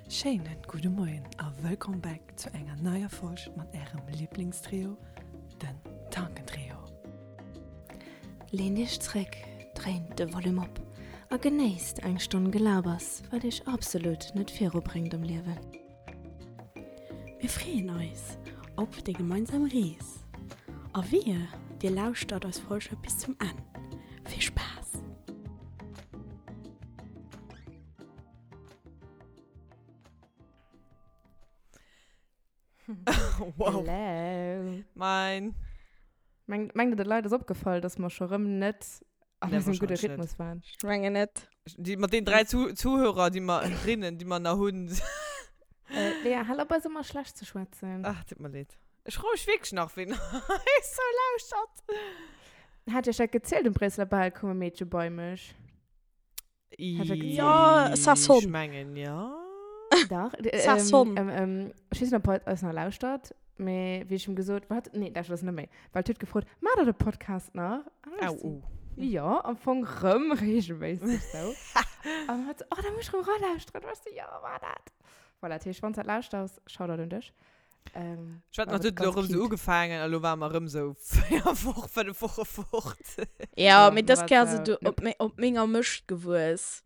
Schéinen gudde Moien a wëllkomm back zu enger neier Folg mat ärem Liblingstrio, den Tankentrio. Leent iech zréck, dréint de Volume op a genéisst eng Stonn Gelabers, wat iech absolut net virubréngt am Liewen. Mir freeën eis op déi gemeinsam Rees a wehe dir lauschtert eis Folge bis zum Enn. Vill Spaass! Wow. Hello. Mein. Mengt, mengt der, de Leit ass opgefall, dass mer scho rëm net an Nee, eisem gudde wahrscheinlech net. Rhythmus waren? Ech mengen net. Déi, mat den 3 Zu Zuhörer, déi mer, Rinnen, déi mer nach hunn. Äh, Lea, hal op eis ëmmer schlecht ze schwätzen. Ach, tut mer leed. Ech froe mech wierklech nach, ween eis sou lauschtert. Hat ech dat gezielt, um Bréisseler Bal koum e Meedche bei mech. Ja, ça sonne. Ech mengen, ja. Dach. Ça sonne. Ähm, ähm, ech weess net, ob hatt eis nach lauschtert, mee wéi ech him gesot, wat? Nee, lauschtert eis net méi. Well et huet gefrot, Maacht der de Podcast nach? An ech Au, so, oh. Jo, am Fong rëm reegelméisseg sou. An hatt so, oh, da muss ech rëm eralauschteren. An ech so, jo, maach dat. Voilà, dat heescht, wann s dat lauschters, Shoutout un dech. Ähm, Ech wetten, war dat huet elo ganz erëm sou cute. ugefaangen a lo ware mer erëm sou 4 Woch, 5 Woche fort. Ja, Ja, mee mir dës war Kéier ass sou, et op, nope. me op menger Mëscht gewuess.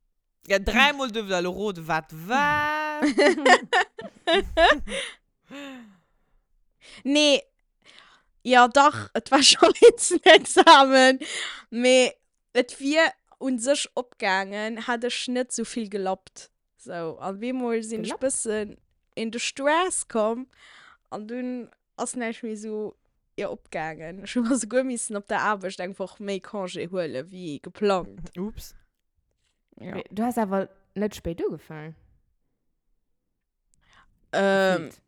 Ja, dräimol duerft der elo roden, wat war. Nee, ja dach, et war schonn eens en Examen, mee et wier un sech opgaangen, hätt ech net sou vill gelappt. Sou, an bemol sinn ech Gelappt? bëssen in de Stress komm an dunn ass näischt méi sou, jo, opgaangen. Ech hu mer souguer missen op der Aarbecht eng Woch méi Congé huele wéi geplangt. Ups. Ja. Mee du has awer net spéit ugefaangen? Ähm, Gefühlt.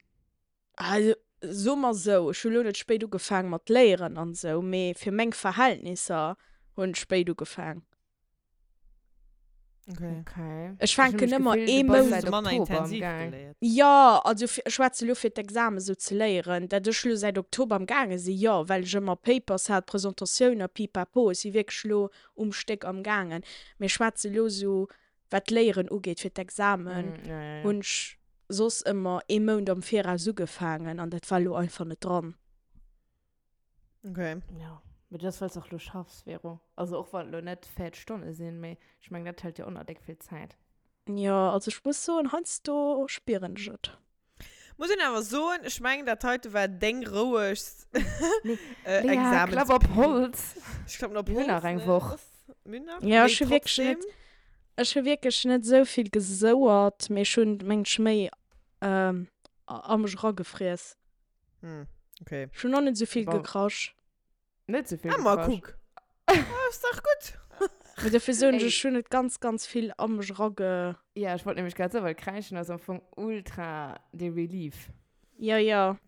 also soe mer sou, ech hu lo net spéit ugefaang mat léieren an sou, mee fir meng Verhältnisser hunn ech spéit ugefaang. Okay. Okay. Ech fänken ëmmer ee Mount Mount. seit Manner Oktober am intensiv Gaang. geléiert. Jo, also fir, ech schwätze lo fir d'Examen sou ze léieren, dat ech lo säit Oktober am gaange sinn, jo, well ech ëmmer Papers hat, Presentatioun a pipapo, ech si wierklech lo um Stéck am gaangen, mee ech schwätze lo sou wat d'Léieren ugeet fir d'Examen, Mm, ja, ja, ja. hunn ech soss ëmmer ee Mount am Viraus ugefaangen an dat war lo einfach net dran. Okay. Ja, mee dat ass, well s och lo schaffs, Vero. Also och wann et lo net 40 Stonne sinn, mee ech mengen, dat hëlt jo och nach déck vill Zäit. Jo, also ech muss soen, heiansdo spieren ech et. Muss een awer soen, ech mengen, dat heite war deng rouegst Nee, äh, Lea, Examens. klapp op Holz! Ech klappen op Mir hunn Holz, nach eng ne? Woch. Mir hunn nach, Ja, mee ech hu wierklech net, trotzdem. ech hu wierklech net esou vill gesouert, mee ech hunn, mengen ech, méi ähm, a mech eragefriess. Hm, okay. Ech hunn och net esou vill Bon. gekrasch. Net sou vill Ah, ma gekrasch. kuck. Ah, ass dach gutt. Mee dofir soen ech, Ey. ech hunn et ganz, ganz vill a mech erage. Ja, ech wollt nämlech grad soen, well Kräischen ass am Fong ultra de Relief. Ja, ja.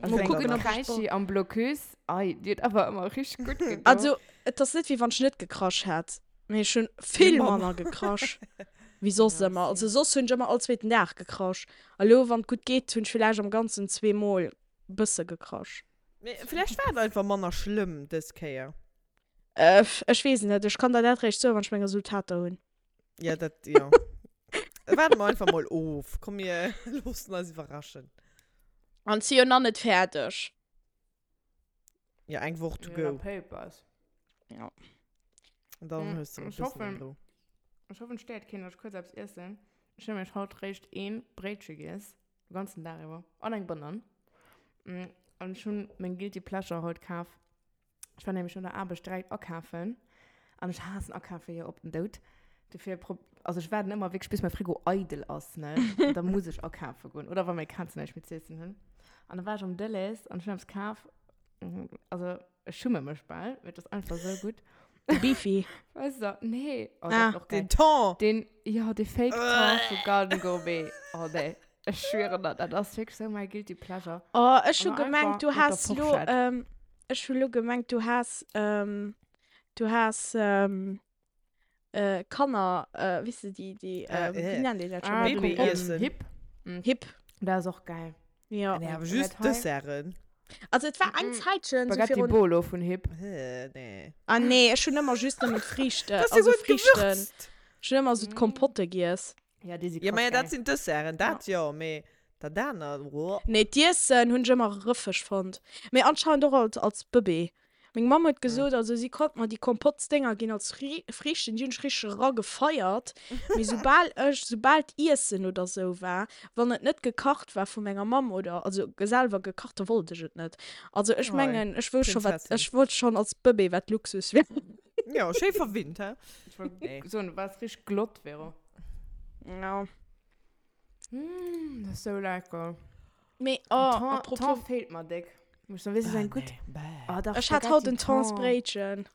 Also Mol eng kucken, gutt ob ech Kräischi am Blocus, ei, déi huet awer ëmmer richteg gutt gedoen. Also, et ass net, wéi wann ech net gekrasch hätt, mee ech hunn vill manner gekrasch wéi soss Ja, ëmmer. Also same. soss hunn ech ëmmer all zweeten Dag gekrasch. A lo, wann et gutt geet, hunn ech villäicht am Ganzen zweemol bësse gekrasch. Mee vläicht war et einfach manner schlëmm dës Kéier. Ech weess et net. Ech kann der dat réischt soen, wann ech meng Resultater hunn. Ja, dat, jo. Waarde mer einfach mol of. Komm, mir loossen eis iwwerraschen. An si jo nach net fäerdeg. Ja, eng Woch to Ja, go. Papers. Ja. An dann Mm, hues du e ech bëssen hoffen- Rou. Ech hoffen, et stéiert keen, datt ech kuerz eppes iessen. Ech hunn nämlech haut réischt een Bréitche giess, de ganzen Dag iwwer, an eng Banann. Mm, An ech hunn meng Guilty Pleasure haut kaf. Ech war nämlech no der Aarbecht direkt akafen. An ech haassen akafe jo op den Doud. Dofir prob-, also ech waarden ëmmer wierklech bis mäi Frigo eidel ass, ne? Da muss ech akafe goen. Oder wa meng Kazen näischt méi z'iessen hunn. An da war ech am Delhaize an ech hunn eppes kaf. Also ech schumme mech bal, mee et ass einfach sou gutt. De Beefy. Weißt du, nee. Oh, dat Ah. ass och geil. Den Thon! Den, ja, de Fake Thon vu Garden Gourmet. Oh nee, ech schwören der, dat ass wierklech sou mäi guilty pleasure. Oh, ech hu An einfach gemengt, du mat der has lo, Forschett. ähm, ech hu lo gemengt, du has, ähm, du has, ähm, äh, Kanner, äh, wéi se déi, déi, Äh, ähm, wéi äh. nennt een dat schon? Ah, Baby den, Essen. Essen. Hip. Mm. Hip. Dat ass och geil. Ja. Nee, awer Und just dat hei? Desserten. Also et war eng Mm-mm. Zäitchen, so Spaghetti virun. Bolo vun Hip. Äh, nee. Ah nee, ech hunn ëmmer just nëmmen d'Friichte, Das ist also ja gut Friichten. gewürzt. Ech hunn ëmmer so Mm. d'Kompotte giess. Ja, déi si Ja, krass ma ja, dat geil. sinn d'Desserten, dat jo, mee dat anert, woah. Nee, d'Iessen hunn ech ëmmer rëffeg fonnt. Mee anscheinend och als, als Bëbee. Meng Mamm huet gesot, also si konnt mer déi Kompottsdénger ginn als Friichten, déi hunn ech richteg eragefeiert. Mee soubal ech, soubal d'Iessen oder sou war, wann et net gekacht war vu menger Mamm oder, also selwer gekacht, da wollt ech et net. Also ech mengen, ech wousst scho wat, ech wollt schonn als Bëbee wat Luxus wär. Jo, schéi verwinnt, hä? Ech wollt soen, du waars richteg glott, Vero. Ja. Mm, dat ass sou lecker. Mee, oh, Thon, apropos. Thon feelt mer déck. Muss soen, weess du, eng gutt. Oh, dach, Ech hat haut en Thonsbréitchen.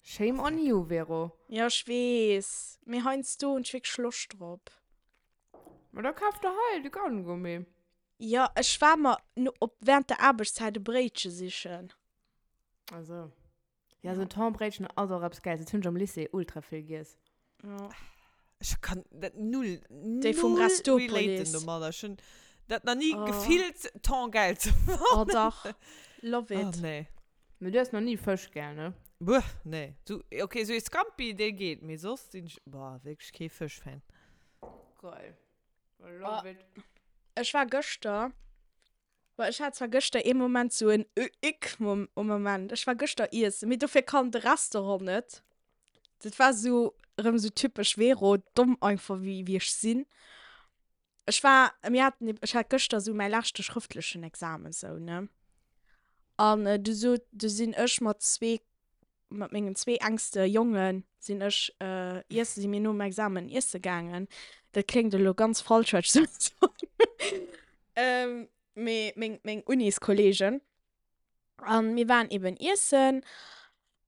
Shame on you, Vero. Ja, ech weess. Mee heiansdo hunn ech wierklech Loscht drop. Ma da kaf der hei de Kaugummi. Ja, ech war mer no, op, während der Aarbechtszäit e Bréitche sichen. Ach so. Ja, so Thonbréitchen ass och eppes Gäils. Dat hunn ech am Lycée ultra vill giess. Ja. Ech kann dat null, Déi vum null Restopolis. relaten domadder. Ech hunn dat nach ni Oh. gefillt, Thon gäil ze fannen. Oh dach, love Oh, it. nee. Mee du hues nach ni Fësch gär, ne? Bueh, nee. So, okay, sou ee Scampi, dee geet, mee soss sinn ech, boah, wierklech kee Fësch-Fan. Geil. I love it. Ech war gëschter Boah, ech hat zwar gëschter ee Moment sou en Ick-Moment. Ech war gëschter iessen, mee dofir kann de Restaurant net. Dat war sou erëm sou typesch Vero, domm einfach wéi wéi ech sinn. Ech war, mir haten, ech hat gëschter sou mäi leschte schrëftlechen Examen sou, ne? An du sot, du sinn ech mat zwee mat mengen zwee engste Jonge sinn ech iessen, si mir nom Examen iesse gaangen. Dat kléngt elo ganz falsch, wat ech soen soll. Mee meng, meng Uniskolleegen. An mir waren eben iessen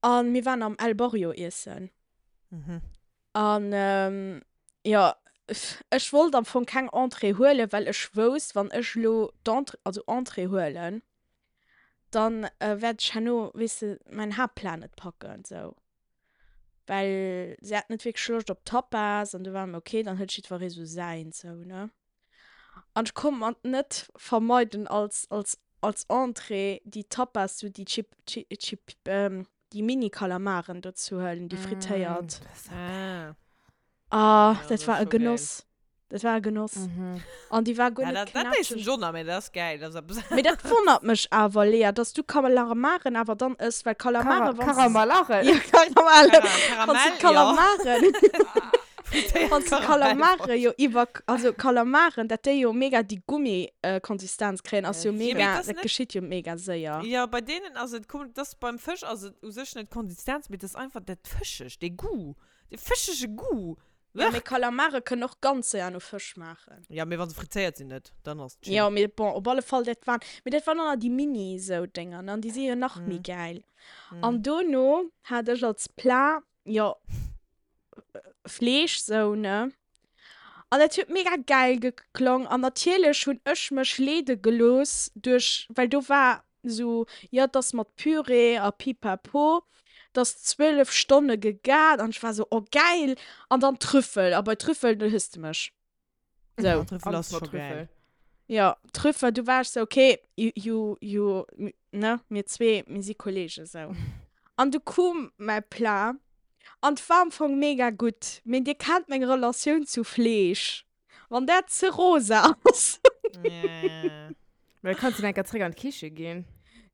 an mir waren am El Barrio iessen. An jo, ech wollt am Fong keng Entrée huelen, well ech wousst, wann ech elo d'Entrée, also Entrée huelen, dann wäert ech herno, weess de, mäin Haaptplat net packen, sou. Well si hat net wierklech Loscht op Tapas an du war mir ok, dann huet jiddweree sou säins, sou, ne. An ech konnt mer net vermeiden als, als, als Entrée déi Tapas, sou déi Chip, Chip, Chip, déi Mini-Kalamaren do ze huelen, déi frittéiert. Ah. Ah, Ja, dat das war ist e schon geil. Genoss. Dat war e Genoss. An déi war guer Ja, net dat, dat essen knatscheg. ech och nach, mee dat ass geil. Dat ass eppes Mee dat wonnert mech awer, Lea, dass du Kalamaren awer dann ëss, well Kalamare, wann s de. Karamalaren? Ja, Karamelle. Kara Wann s de Karamell, ja. Kalamaren. Frittéiert Wann s de Karamell. Kalamare jo iwwer, also Kalamaren, dat déi jo mega déi Gummi-Konsistenz kréien, ass jo Ja, mee mega, dat ass dat net. geschitt jo mega séier. Ja, bei deenen ass et komm, dat ass beim Fësch ass et u sech net d'Konsistenz, mee dat ass einfach dat Fëschegt, dee Goût. Dee fëschege Goût. Ja, mee Kalamare kënnen och ganz séier no Fësch schmaachen. Ja, mee wa se frittéiert sinn net, dann ass et chill. Jo, mee bon, op alle Fall, dat waren, mee dat waren och nach déi Mini sou Dénger, ne, an déi si jo nach méi gäil. An dono hat ech als Plat, jo, Fleesch sou, ne, an dat huet mega gäil geklong. An natierlech hunn ech mech leede gelooss duerch, well do war Sou, jo, 't ass mat Püree a Pipapo, 't ass 12 Stonne gegart an ech war sou, oh gäil! An dann Trüffel, a bei Trüffel, do hues de mech. Sou. Ja, Trüffel ass scho gäil. Jo, Trüffel, du war ech sou, okay, you, you, ne, mir zwee, mir si Kollegen, sou. An du koum mäi Plat an 't war am Fong mega gutt, mee dir kennt meng Relatioun zu Fleesch. Wann dat ze rosa ass. Yeah. Mä da kanns du enker zréck an d'Kiche ginn.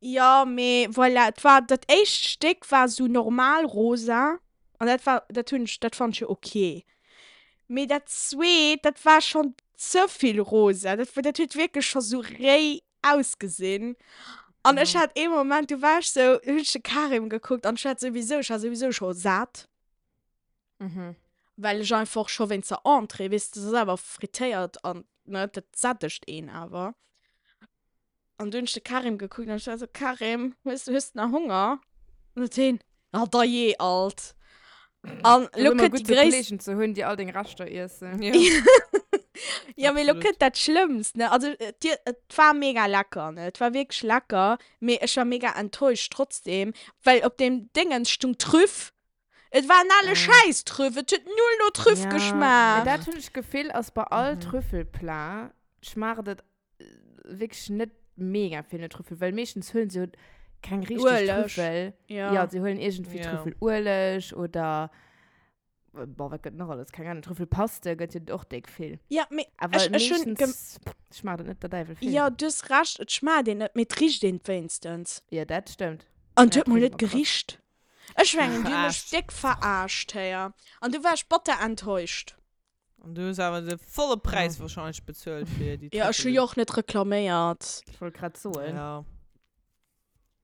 Jo, mee voilà, et war, dat éischt Stéck war sou normal rosa an dat war, dat hunn ech, dat fand ech jo ok. Mee dat zweet, dat war schonn ze vill rosa, dat, dat huet wierklech scho sou réi ausgesinn. An ech hat ee Moment, du war ech sou, hunn ech de Karim gekuckt an ech hat souwisou, ech war souwisou scho sat. Mhm. Well ech einfach scho wéinst der Entrée, weess de, dat ass awer frittéiert an ne, dat sättegt een awer. An du hunn ech de Karim gekuckt an ech war esou, Karim, hues, hues de nach Honger? An huet hien, Ah dajee alt. An Ass lo ëmmer kënnt gutt, déi sou gréisst. Kolleegen ze hunn, déi all deng Reschter iessen. Ja. Ja, mee lo Absolut. kënnt dat Schlëmmst, ne? Also, et, et war mega lecker, ne? Et war wierklech lecker, mee ech war mega enttäuscht trotzdem, well op deem Déngens stung Trüff Et war en ale Schäiss-Trüff, et huet null no Trüff Ja, geschmaacht. mee dat hunn ech d'Gefill ass bei all Trüffelplat schmaacht et wierklech net mega vill no Trüffel, well meeschtens huelen se jo keng richteg Ueleg. Trüffel. Ja. Ja, se huelen iergendwéi Ja. Trüffelueleg oder. Boah, wat gëtt nach alles? Keng Ahnung. Trüffelpaste gëtt jo och déck vill. Ja, mee Awer ech, ech hunn gem meeschtens schmaacht et net der Däiwel vill. Ja, du hues Recht, et schmaacht een net, mee et richt een wéinstens. Ja, dat stëmmt. An et Ja, huet mol et richt net ëmmer krass. gericht. Ech mengen, déi hu mech Verarscht. déck verarscht, héier. An du war ech batter enttäuscht. An du hues awer de volle Präis wahrscheinlech bezuelt fir déi Ja, ech hu Trüffelen. jo och net reklaméiert. Ech wollt grad soen. Ja.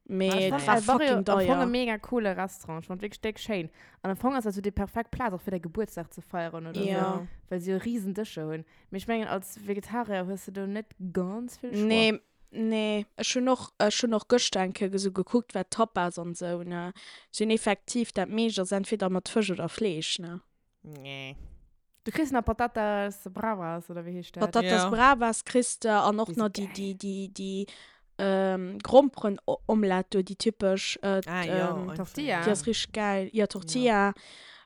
Mee Et et war war fucking am Fong e deier. mega coole Restaurant. Ech fand wierklech déck schéin. An am Fong ass dat sou déi perfekt Plaz och fir däi Gebuertsdag ze feieren oder sou, Ja. well se jo riesen Dëscher hunn. Mee ech mengen als Vegetarier hues de do net ganz vill Choix. Nee, nee. Ech hunn och, ech hunn och gëschter eng Kéier esou gekuckt, wat Tapas an sou, ne. Si hunn effektiv, dat meescht ass entweder mat Fësch oder Fleesch, ne. Nee. Du kriss nach Patatas Bravas oder wéi heescht dat? Patatas Ja. Bravas kriss de an och Déi si nach déi, geil. déi, déi, déi ähm, Gromperen-Omelette do, déi typesch. Äh, Ah, ja, ähm, einfach. Tortilla. déi ass richteg geil. Ja, Tortilla.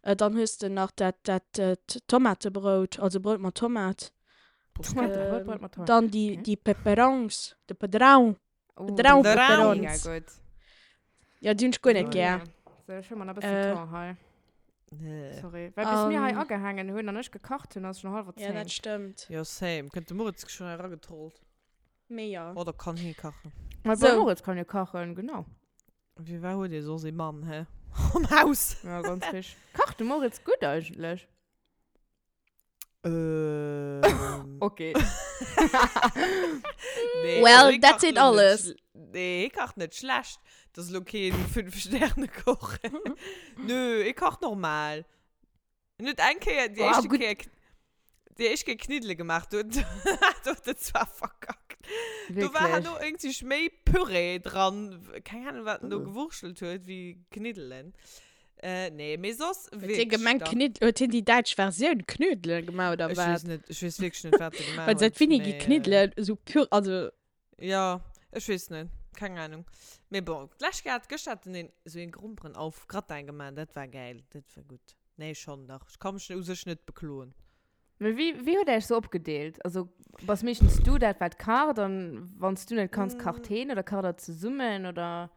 Äh, dann hues de nach dat, dat, äh, Tomatebrout, also Brout mat Tomat. Tomatebrout, Ähm, Brout mat Tomat. Dann déi, Okay. déi Peperons, de Pedrau. Oh, Pedrau déi si Peperons. mega gutt. Ja, déi hunn ech guer net Oh, gär. ja. So, ech hu mer nach e bëssen Äh, Thon hei. Nee. Sorry. Well bis mir hei An- agehaangen hunn an ech gekacht hunn, ass schon hallwer Ja, dat 10. stëmmt. Ja, same. Kënnt de Moritz schon eragetrollt. Mee ja. Oder kann hie kachen. Ma So. so. Moritz kann jo kachen, genau. Wie war huet ee soss ee Mann, hä? Am Haus. Ja, ganz richteg. Kacht de Moritz gutt eigentlech? Ähm. Okay. Nee, Well, also hie dat kacht seet lo net alles. schl- Nee, hie kacht net schlecht. Dat ass lo keen Fünf-Sterne-Koch. Nö, hie kacht normal. En huet eng Kéier, déi Oh, éischte gutt. Kéier, déi éischt Kéier Kniddele gemaach, do huet do huet en zwar verkackt. Do war Wierklech. herno irgendwie méi Püree dran, keng Ahnung, wat en do gewurschtelt huet, wéi Kniddelen. Äh, nee, mee soss Huet hie wierklech gemengt, dann. Knidd, huet hien déi däitsch Versioun Knödelen gemaach oder Ech wat? weess net, ech weess wierklech net, wat e gemaach Well seit huet, wéini gi mee, äh, Kniddelen esou pur, also. Ja, ech weess net, keng Ahnung. Mee bon, d'lescht Kéier hat, gëschter hat en een esou een Gromperen auf Gratin gemaach, dat war gäil, dat war gutt. Nee, schonn dach, ech ka mech u sech net bekloen. Mee wéi, wéi hutt der iech sou opgedeelt? Also bass meeschtens du dat wat kacht an wann s du net kanns, kacht heen oder kacht der zesummen oder?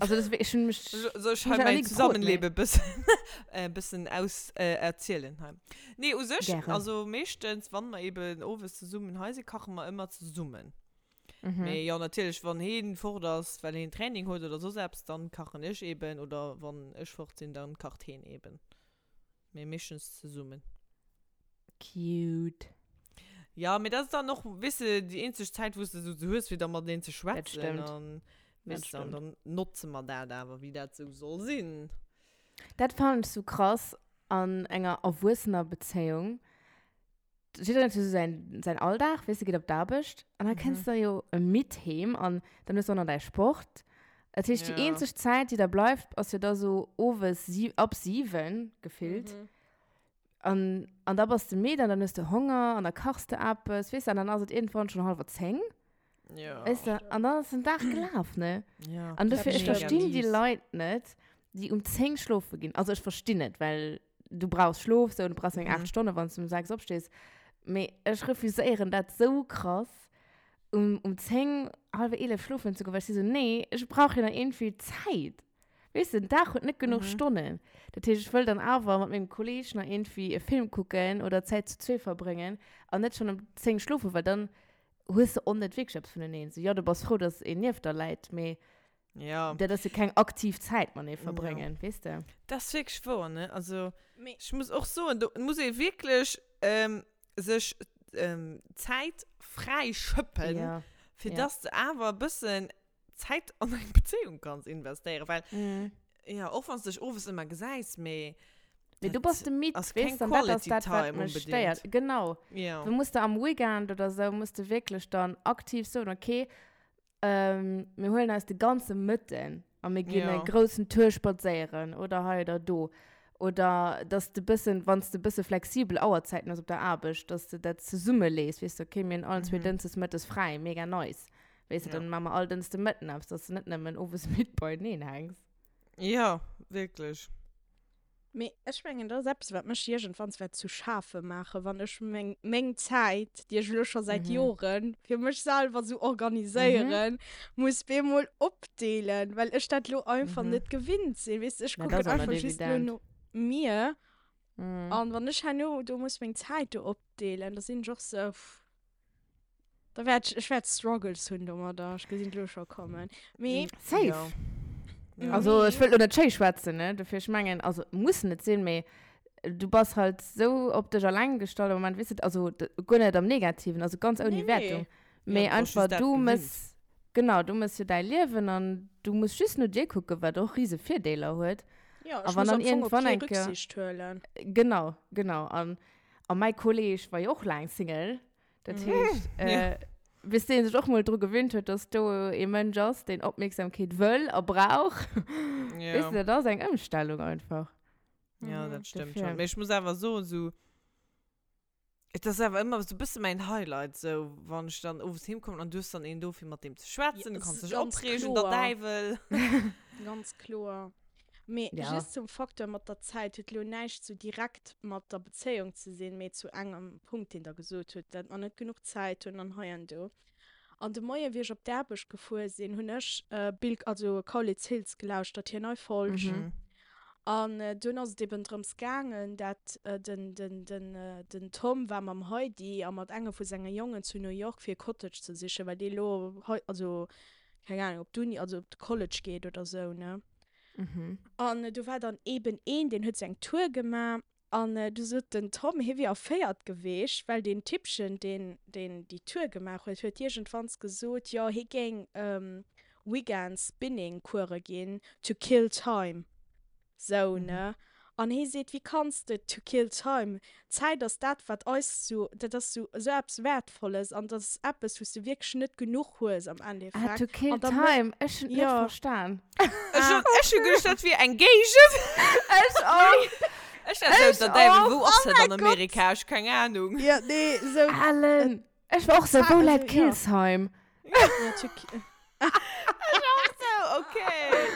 Also das, ich hun mich Soll ich hun hei mich nach mein nie gefrot, nee. Zusammenleben bëssen, äh, bëssen aus, äh, erzielen hei? Nee, u sech, Gären. also meeschtens, wann mer eben owes zesummen hei sinn, kache mer ëmmer zesummen. Mhm. Mee jo, natierlech, wann heen fort ass, well heen Training huet oder soss eppes, dann kachen ech eben, oder wann ech fort sinn, dann kacht heen eben. Mee meeschtens zesummen. Cute. Ja, mee dat ass dann och, weess de, déi eenzeg Zäit, wou s de sou hues, fir da mateneen ze Dat schwätzen. stëmmt. An, Dat weess de, an stëmmt. dann notze mer dat awer, wéi dat sou soll sinn. Dat fannen ech sou krass an enger erwuessener Bezéiung. Jiddereen huet jo sou säin, säin Alldag, weess de, geet op d'Aarbecht an da kënns de jo midd heem an dann hues de och nach däi Sport. Dat heescht, déi Ja. eenzeg Zäit, déi da bleift, ass jo da sou owes si, ab 7 gefillt. An, an da bass de midd an dann hues de Honger an da kachs de eppes, weess de, an dann ass et iergendwann schonn hallwer 10. Ja. Weess de, an dann ass den Dag gelaf, ne? Ja. An dofir, ech Mega verstinn déi mies. Leit net, déi um 10 schlofe ginn. Also ech verstinn et, well du brauchs Schlof, sou, du brauchs eng 8 Mhm. Stonne, wann s du um 6 opstees. Mee ech refuséieren dat sou krass, um, um 10, hallwer 11 schlofen ze goen, well ech si sou, nee, ech brauch jo nach iergendwéi Zäit. Weess de, den Dag huet net genuch Mhm. Stonnen. Dat heescht, ech wëll dann awer mat mengem Kolleeg nach iergendwéi e Film kucken oder Zäit zu zwee verbréngen an net schonn um 10 schlofen, well dann hues de och net wierklech eppes vuneneen. Sou, jo, du bass frou, dass een nieft der läit, mee Ja. dat ass jo keng aktiv Zäit matenee Ja. verbréngen, weess de? Dat ass wierklech wouer, ne? Also, Mee- ech muss och soen, do muss ee wierklech ähm, sech ähm, Zäit fräi schëppen, Ja. fir ja. dass de awer e bëssen Zäit an eng Bezéiung kanns investéieren, well, Mhm. ja, och wann s de dech owes ëmmer gesäis, mee Mee du dat bass de midd, ass weess keng de, an dat ass Quality dat, wat Time mech unbedingt. stéiert. Genau. Ja. Du muss de am Weekend oder sou, muss de wierklech dann aktiv soen, okay, ähm, mir huelen eis de ganze Mëtten a mir ginn Ja. e groussen Tour spadséieren oder hei oder do. Oder dass de bëssen, wann s de bësse flexibel Auerzäiten hues op der Aarbecht, dass de dat zesummelees, weess de, okay, mir hunn allen zwee Mhm. Dënschdes mëttes fräi, mega nice. Weess de, Ja. dann maache mer all Dënschde Mëtten eppes, dass de net nëmmen owes midd beieneen hänks. Ja, wierklech. Mee ech mengen, dat ass eppes, wat mech iergendwanns wäert zu schafe maachen, wann ech meng, meng Zäit, déi ech elo scho säit Mhm. Jore fir mech selwer esou organiséieren, muss bemol opdeelen, well ech dat elo einfach Mhm. net gewinnt sinn. Weess de, ech Mä dat kucken ass och net einfach just elo evident. no mir. Mm. An wann ech herno do muss meng Zäit do opdeelen, da sinn ech och sou, pff, da wäert ech, ech wäert Struggles hunn domadder, ech gesinn et elo scho kommen. Mee. Safe. Ja. Ja. Also ech wëll lo net schéi schwätzen, ne, dofir ech mengen, also muss net sinn, mee du bass halt sou op dech alleng gestallt am Moment, weess de, also guer net am Negativen, also ganz ouni Nee, nee. Wertung, mee Ja, du bass einfach just dat du gewinnt. mëss, genau, du mëss jo däi Liewen an du muss just no dir kucken, wat och rise Virdeeler huet. Ja, A ech wann muss dann am Fong op iergendwann kee eng Kéier, Rücksicht huelen. genau, genau, an a mäi Kolleg war jo och laang Single, dat heescht, Ja. bis dee sech och mol dru gewinnt huet, dass do ee Mënsch ass, deen Opmierksamkeet wëll a brauch, Ja. weess de, dat ass eng Ëmstellung einfach. Ja, Mhm. dat stëmmt Dofir. schon. Mee ech muss awer soen, sou, et ass awer ëmmer sou bësse mäin Highlight, sou, wann ech dann owes heem kommen an du hues dann een do, fir mat deem ze schwätzen, Ja, du kanns s- dech ganz opreegen, der kloer. Däiwel. Ganz kloer. Mee Ja. just zum Facteur mat der Zäit huet lo näischt sou direkt mat der Bezéiung ze sinn, mee zu engem Punkt, deen der gesot hutt, dat mer net genuch Zäit hunn an hei an do. An de Moien, wéi ech op d'Aarbecht gefuer sinn, hunn ech Bill, also Kaulitz Hills gelauschtert, hir nei Folg. Mhm. An dunn ass et eben drëms gaangen, dat den, den, den, den Tom war mam Heidi a mat engem vu senge Jongen zu New York fir e Cottage ze sichen, well dee lo hei, also keng Ahnung, op d'Uni, also op de College geet oder sou, ne. Mhm. An do war dann eben een, deen huet sou eng Tour gemaach An du sot den Tom, hie wier erféiert geweecht, well deen Typchen, deen deen déi Tour gemaach huet, huet iergendwanns gesot, jo, hie géing Weekends Spinning-Course ginn, to kill time. Sou, ne? An hie seet, wéi kanns de to kill time? Zäit ass dat, wat eis sou, dat ass sou esou eppes Wäertvolles an dat ass eppes, wou s de wierklech net genuch hues am Ah, Endeffekt. to kill An da mé- time. Ech hunn et net Jo. verstan. Ech hun, ech hun geduecht, dat wier eng Géigend. Ech och. Ech dacht sou, Ech der Däiwel, och. wou ass dat an Amerika? Ech keng Ahnung. Ja, nee, sou. Ellen. Ech war och sou, Zäit, wou läit also, ja. Killsheim? Ja, to ki- Ech och sou, okay.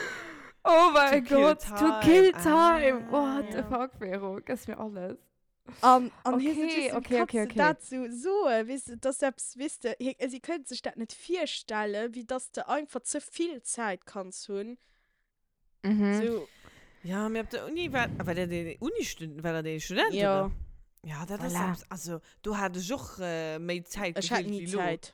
Oh mein To kill Gott, to kill time. time. What the Ah. fuck, Vero, gëss mir alles. An, an hie sot, Okay, weess du, okay, okay, kanns du okay. dat sou soen, weess du, dass eppes, weess du, hie, si kënnt sech dat net virstellen, wéi dass de einfach ze vill Zäit kanns hunn. Mhm. Sou, Ja, mee op der Uni war, war dat een Uni-Student, war dat een Student, Ja. oder? Ja, dat ass Voilà. eppes, also, do hat ech och méi Zäit ech hat gefillt ni wéi lo. Zäit.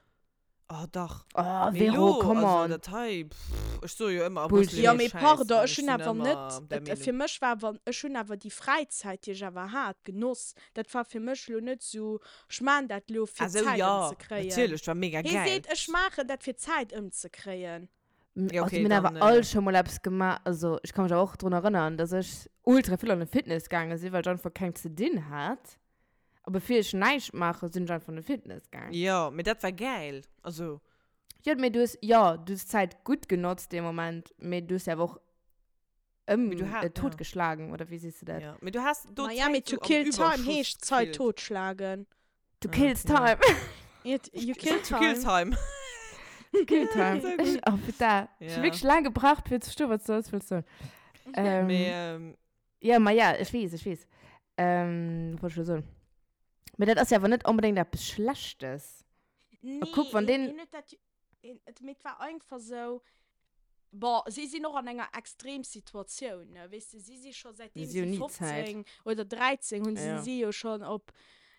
Oh, dach. Oh, Mee Vero, lo, come also on. dat hei, pff, ech soe jo ëmmer, Bullshit. Ja, Abrëll mee Schäiss, pardon, an ech ech hunn sinn awer ëmmer net, der et, Meenung. fir mech war awer, ech hunn awer déi Fräizäit, déi ech awer hat, genoss. Dat war fir mech lo net sou, ech maan dat lo, fir Ah sou, Zäit ja, ëmzekréien. natierlech, war mega Hie gäil. seet, ech maachen dat, fir Zäit ëmzekréien. Ja, Also okay, mir hunn awer dann, all äh, scho mol eppes gemaach, also ech ka mech awer och drun erënnern, dass ech ultra vill an de Fitness gaange sinn, well ech einfach keng ze dinn hat. A bevir ech näischt maache, sinn ech einfach an de Fitness gaang. Jo, mee dat war gäil. Also. Jo, mee du hues, jo, du hues d'Zäit gutt genotzt dee Moment, mee du hues se awer och ëm, Mee du ha-, äh, ja. totgeschlagen, oder wéi sees du dat? Ja, mee du has do Naja, mee d'Zäit to sou am kill time Überschuss heescht Zait gefillt. totschlagen. To Ah, kills ja. time. It, you kill To kill time. time. To kill time. So Ech, gutt. oh, putain. Ech hu Ja. wierklech laang gebraucht, fir ze verstoen, wat s du alles wëlls soen. Ähm, Mee, ähm, Ja, ma ja, ech weess, ech weess. Ähm, wat wollt ech elo soen? Mee dat ass jo awer net onbedéngt eppes Schlechtes. Nee, A kuck, wann hien, deen. hien huet dat, hien, et, mee et war einfach sou, bon, si sinn och an enger Extremsituatioun, ne, weess de, si si scho säitdeem Si hunn si ni Zäit. 15 oder 13 hunn, si Ja. si jo schonn op,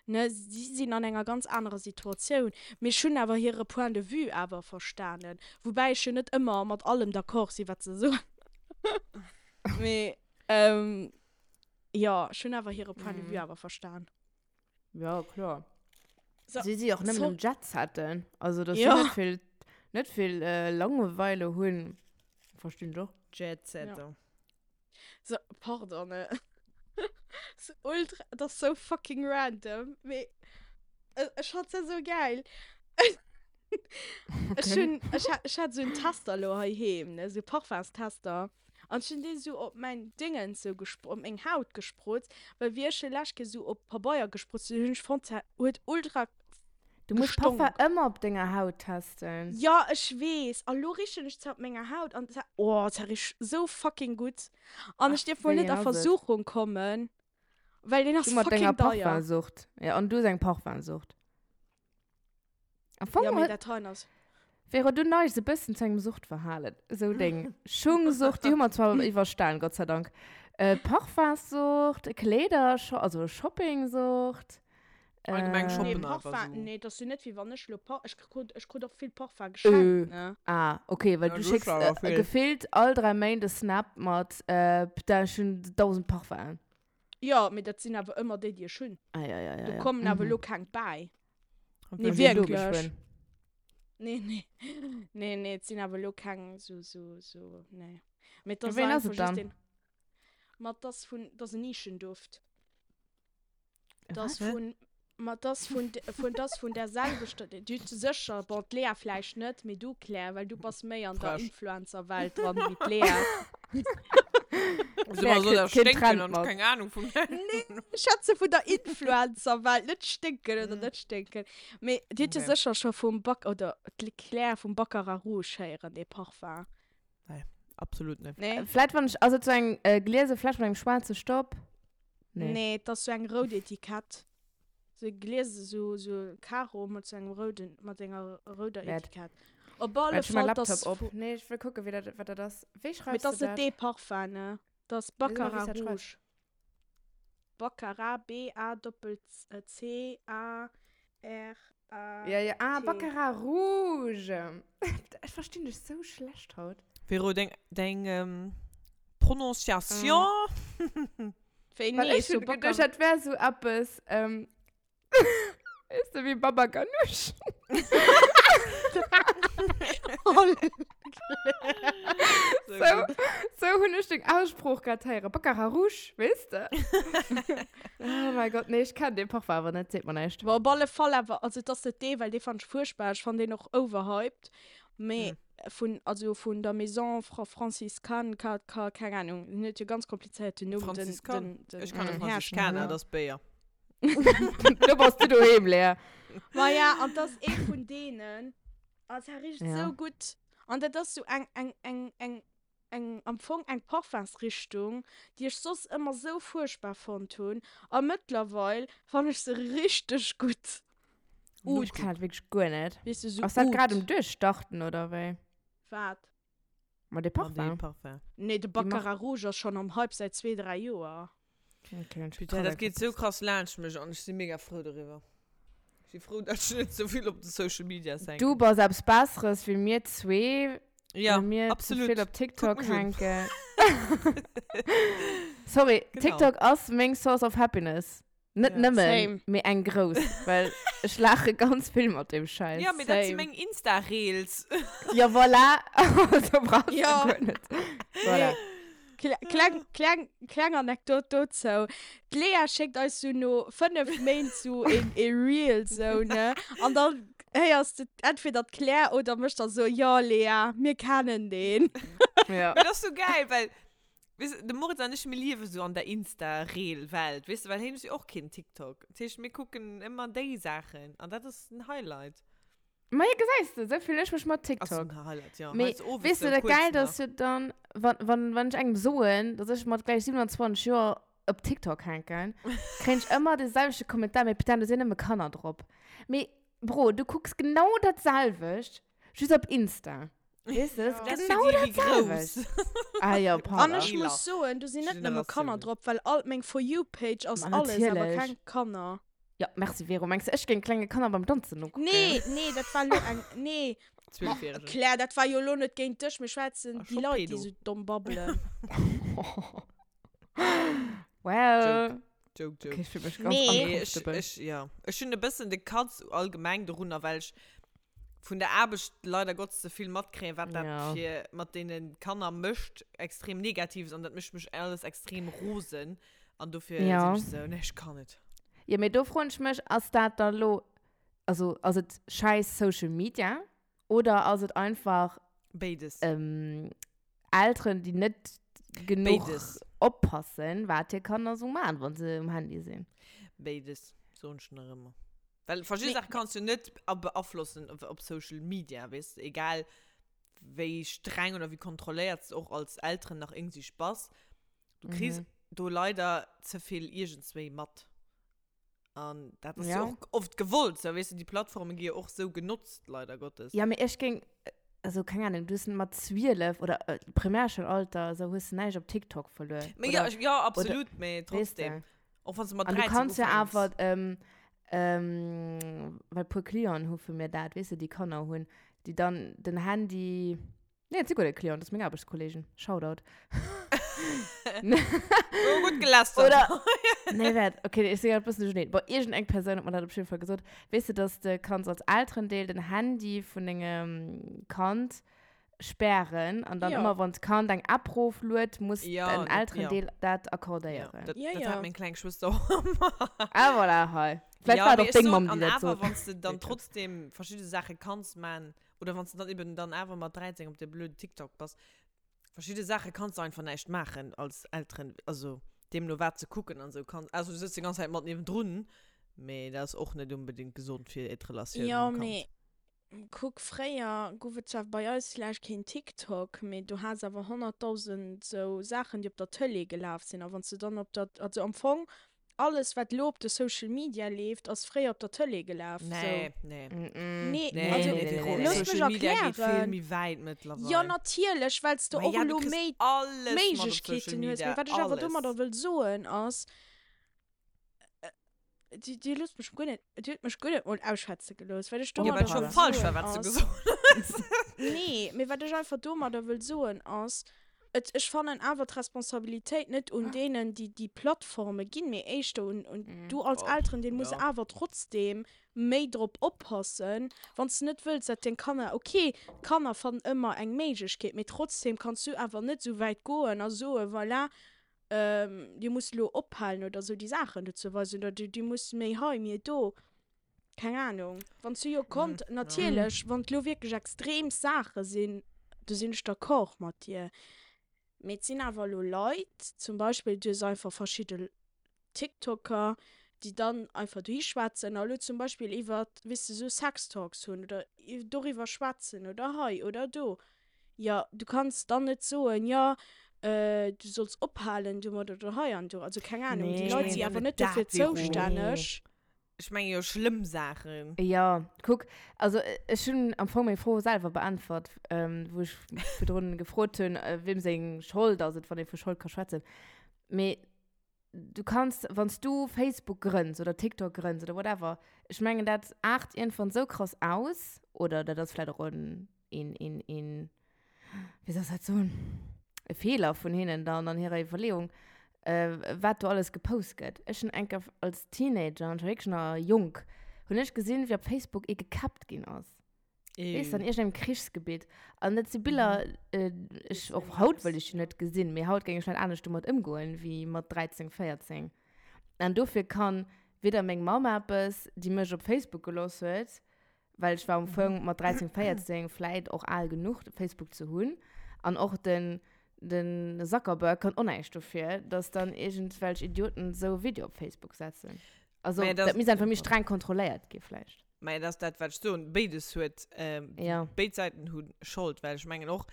ne, si sinn an enger ganz anerer Situatioun. Mee ech hunn awer hire Point de vue awer verstanen, woubäi ech jo net ëmmer mat allem d'accord sinn, wat se soen. Mee. Ähm, jo, ech hunn awer hire Point de vue awer verstan. Ja, kloer. So, Si si och nëmmen so am Jetsetten. Also, dass si Ja. net vill, net vill äh, Langeweile hunn, verstinn ech och. Jetsetter. So, pardon, ne. So ultra, dat ass sou fucking random, mee ech fand se sou geil. Ech Okay. hunn, ech hat, ech hat sou en Tester lo heiheem, ne, sou Parfumstester. An ech hunn dee sou op mäin Dingens sou gespr-, op meng Haut gesprutzt, well wéi ech e lescht Kéier sou op Pabeier gesprutzt hunn, hunn ech fonnt, se huet ultra Du muss Parfum gestonk. ëmmer op denger Haut testen. Jo, ech weess. A lo richen ech se op menger Haut an se, oh, se richt sou fucking gutt. An ech Ach, dierf mol wéi net een a ass et? Versuchung kommen, well deen Du ass mat denger fucking deier. Parfumsucht. Ja, an du hues eng Parfumsucht. Am Fong Ja, mee huet. dat heien ass. Vero, du neigs e bëssen zu engem Suchtverhalen. Esou deng Schungsucht, déi hu mer zwar iwwerstan, Gott sei Dank. Äh, Parfumssucht, Kleeder, also Shoppingsucht. Allgemeng Nee, shoppen einfach Parfum, so. nee, dat ass jo net wéi wann ech lo Par, ech krut, ech krut och vill Parfum geschenkt, Äh, ne? ah, okay, well Ja, du du schécks hues awer äh, vill. gefillt all 3 Méint e Snap mat, äh, putain, ech hunn 1000 Parfum'en. Jo, mee dat sinn awer ëmmer déi, déi ech hunn. Ah, ja, ja, ja, Do ja. kommen awer Mhm. lo keng bäi. Und Nee, wenn Wéi wierklech. geschwënn. Nee, nee. Nee, nee, et sinn awer lo keng sou, sou, sou, nee. Mee et ass Wéi ass einfach et just dann? een, ma et ass vun, et ass en Nischenduft. Et ass Was? vun, ma et ass vun, vun, et ass vun där selwechter, du hues sécher, bon, d'Lea vläicht net, mee du, Claire, well du bass méi an der Frech. Influencer-Welt dran wéi d'Lea. Also Claire immer so kritt da keen stinken Trend und mat. keng Ahnung vum Nee, ech schwätze vun der Influencer-Welt, net stinken oder net stinken. Mee dir hutt jo Okay. sécher scho vum Bac, oder d'Claire vum Baccarat Rouge héieren, dee Parfum. Nee, absolut net. Nee? Vläit wann ech, ass et sou eng äh, gliese Fläsch mat engem schwaarze Stopp? Nee, nee et ass sou eng rout Etikett. Sou e gliese, sou, sou e Karo mat sou engem rouden, mat enger rouder Wäert. Etikett. Op alle Wäert, ech hu mäi Fall, et ass Laptop op. vu. Nee, ech wëll kucken, wéi dat, wat dat ass. Wéi Mee et schreifs de ass net dat? dee Parfum, ne? Et ass Wéi soll mer, wéi s Baccarat dat schreifs? Rouge. Baccarat, B-A-Doppel-C-A-R-A. Ja, ja, ah, T. Baccarat Rouge. Ech verstinn dech sou schlecht haut. Vero, deng, deng ähm, Prononciation. Wéi Well nee, ech so hunn geduecht, Baccarat. dat wär sou eppes, ähm, weess de, wéi Baba Ganoush. So Sou, gutt. sou hunn ech deng Aussprooch grad héieren. Baccarat Rouge, weess de? Oh mäi Gott, nee, ech kennen dee Parfum awer net, seet mer näischt. Bon, op alle Fall awer, also et ass net dee, well dee fannen ech fuerchtbar, ech fannen deen och overhyped, mee vun, also vun der Maison Fra Franciscane, ka, ka, keng Ahnung, den huet jo ganz komplizéierten Numm, den, Franziskan? den, den Ech kann e den Franziskaner, Hersteller. dat ass Béier. Do bass du doheem, Lea. Maja, an 't ass ee vun deenen, a se richt Ja. sou gutt, an dat ass sou eng, eng, eng, eng, eng, am Fong eng Parfumsrichtung, déi ech soss ëmmer sou fuerchtbar fonnt hunn, a mëttlerweil fannen ech se richteg gutt. Oud. Ech kennen dat wierklech guer net. Weess de, sou Ass dat grad Oud. um Duerchstarten, oder wéi? Wat? Ma de Ma dee Parfum. Parfum. Nee, de Déi Mark. Baccarat Rouge ass schonn am Hype säit zwee, dräi Joer. Okay, ech Putain, dat geet sou krass laanscht mech an ech si mega frou doriwwer. Ech si frou, dat ech net sou vill op de Social Medias hänken. Du bass eppes Besseres wéi mir zwee, Ja, well mir ze absolut. vill op TikTok Kuck mech un. hänken. Sorry, Genau. TikTok ass meng Source of Happiness. Net Ja. nëmmen, Same. mee eng grouss, well ech laache ganz vill mat deem Schäiss. Ja, mee dat si Same. meng Insta-Reels. Ja, voilà. Also brauchst du Ja. guer net. Voilà. Kle kleng, kleng, kleng Anekdot dozou. D'Lea schéckt eis sou no 5 Méint sou een e Reel sou, ne? An dann héiers de entweder d'Claire oder mech da soen, Jo, Lea, mir kennen deen. Ja. Mee dat ass sou gäil, well Weess de, de Moritz an ech, mir liewe sou an der Insta-Reel-Welt, weess de, well hien huet jo och keen TikTok. Dat heescht, mir kucken ëmmer déi Saachen an dat ass den Highlight. Ma jo, gesäis de, sou fillen ech mech mat Ass TikTok. den Highlight, jo. Mee Heiansdo owes weess de, sou dat kuerz Gäilt nach. ass jo dann, wann, wann, wann ech engem soen, dass ech mat gläich 27 Joer op TikTok hänken, kréien ech ëmmer de selwechte Kommentar, mee putain, do sinn nëmme Kanner drop. Mee Bro, du kucks genau dat selwecht, just op Insta. Weess de, dat Das ass für genau die, dat die grouss. selwecht. Ah jo, An pardon. ech muss soen, do sinn net nëmme Kanner Generatiounen. drop, well all meng For You Page ass Ma alles, awer natierlech. keng Kanner. Ja, merci Vero. Mengs de, ech géing klenge Kanner beim Danzen nokucken? Nee, nee, dat war lo eng, nee. Ma, Zwölfjährige. Claire, dat war jo lo net géint dech, mir schwätzen Ah, déi scho Leit, déi Pedo. sou domm babbelen. Well. Joke, joke. Okay, ech fühl mech ganz Nee. Nee, ech, uncomfortable. ech, ja. Ech hunn e bëssen de Katz allgemeng dorunner, well ech vun der Aarbecht leider Gottes ze vill matkréien, wat dat Ja. fir mat deene Kanner mécht, extrem Negatives, an dat mécht mech alles extrem rosen. An dofir Ja. sinn ech sou, nee, ech kann net. Ja, mee do froen ech mech, ass dat da lo, also ass et schäiss Social Media oder ass et einfach Béides. ähm, Elteren, déi net genuch Béides. oppassen, wat hir Kanner sou maachen, wann se um Handy sinn? Béides, soen ech nach ëmmer. Well verschidde Mee- Saache kanns du net a- beaflossen op, op Social Media, weess de, egal wéi streng oder wéi kontrolléiert s de och als Elteren nach iergendwéi bass, du kriss Mhm. do leider ze vill iergendswéi mat. An dat ass Ja. jo och oft gewollt, sou, weess de, déi Plattforme gi jo och sou genotzt, leider Gottes. Ja, mee ech géing. Also keng Ahnung, du hues mat 12 oder äh, Primärschoul-Alter, esou hues du näischt op TikTok verluer. Mee Oder, ja, ech, ja, oder, absolut, mee weess trotzdem. de. Och wann s du mat An du 13 kanns jo ufänks. awer, ähm, ähm, well puer Clienten hu vu mir dat, weess de, déi Kanner hunn, déi dann den Handy, nee, et si guer net Clienten, dat si meng Aarbechtskollegen, Shoutout. Oh, gutt gelästert. Oder, nee, waart, okay, ech si grad e bëssen duercherneen. Bon, iergendeng Persoun huet mer dat op jidde Fall gesot. Weess de, dass de kanns als Elterendeel den Handy vun dengem Kand spären an dann Ja. ëmmer, wann d'Kand eng App rofluet, muss Ja, den dat, ja. Elterendeel dat Ja, accordéieren. dat, Ja, dat ja. hat meng kleng Schwëster och ëmmer. Ah, voilà, hei. Vläicht Ja, war et mee och ech deng soen, Mamm, déi an dat awer, sot. wann s de dann Weet net. trotzdem verschidde Saache kanns man, oder wann s de dann eben dann awer mat 13 op de blöden TikTok bass, Verschidde Saache kanns de einfach näischt maachen als Elteren, also deemno wat ze kucken an esou kanns, ausser du sëtz déi ganz Zäit mat niewendrun, mee dat ass och net unbedingt gesond fir d'Relatioun Jo, mam Kand. mee kuck, fréier gouf et zwar bei eis vläicht keen TikTok, mee du has awer 100.000 sou Saachen, déi op der Tëlee gelaf sinn. A wann s de dann op der, also am Fong Alles wat lo op de Social Media leeft ass fréier op der Tëlee gelaf. Nee, nee. Nee, Nee, also nee, nee, nee, looss mech Social Media geet vill erklären. méi wäit mëttlerweil. Jo natierlech, well s de Ma och ja, du elo kriss méi alles mat op Social Méiglechkeeten hues. Media, Mee wat ech awer alles. domadder wëll soen ass, Dir, dir loosst mech guer net, dir hutt mech guer net mol ausschwätze gelooss. Wat ech Jo, well domadder et scho wëll falsch war, soen wat s du ass, gesot hues. Nee, mee wat ech einfach domadder wëll soen ass, Et, ech fannen awer d'Responsabilitéit net un deenen, déi déi Plattforme ginn, mee éischter un, un du als Oh, Elterendeel muss ja. awer trotzdem méi drop oppassen, wann s de net wëlls, dat deng Kanner, ok, d'Kanner fannen ëmmer eng Méiglechkeet, mee trotzdem kanns du awer net esou wäit goen a soen, voilà, dir musst elo ophalen oder esou déi Saachen do ze weisen oder dir musst méi hei, méi do. Keng Ahnung. Wann s du jo konnt, natierlech, wann et lo wierklech extrem Saache sinn, do sinn ech d'accord mat dir. Mee et sinn awer elo Leit, zum Beispill, du hues einfach verschidde TikToker, déi dann einfach dohi schwätzen a lo zum Beispill iwwer, weess de, sou Sextalks hunn oder doriwwer schwätzen oder hei oder do. Jo, du kanns dann net soen, jo, du solls ophalen domat oder hei an do. Also keng Ahnung, déi Nee. Leit si awer net dofir zoustänneg. Ech menge jo schlëmm Saachen. Jo, kuck, also ech hunn am Fong meng Fro selwer beäntwert, wou ech virdrun gefrot hunn, wiem seng Schold ass et, wann ee vu Schold ka schwätzen. Mee du kanns, wann s du Facebook grënns oder TikTok grënns oder whatever, ech mengen dat aart iergendwann esou krass aus, oder dat ass vläicht och en een, een, een, wéi soll ech dat soen, e Feeler vun hinnen dann an hirer Iwwerleeung, äh, wat do alles gepost gëtt. Ech hunn eng Kéier als Teenager, an ech war wierklech nach jonk, hunn ech gesinn, wéi op Facebook ee gekäppt ginn ass. Weess de, an iergendengem Krichsgebitt. An dat si Biller, äh, ech, och haut wëll ech déi net gesinn, mee haut géing ech vläicht anescht domat ëmgoen, wéi mat 13, 14. An dofir kann weder meng Mamm eppes, déi mech op Facebook gelooss huet, Well ech war am Fong mat 13, 14 vläit och al genuch, Facebook ze hunn. An och den, den Zuckerberg kann och näischt dofir, dass dann iergendwelch Idioten esou e Video op Facebook setzen. Also, Mä dat dat, misst einfach méi streng kontrolléiert gi vläicht. mä dat ass dat, wat ech soen. Béides huet, Ja. béid Säiten hu Schold, well ech mengen och,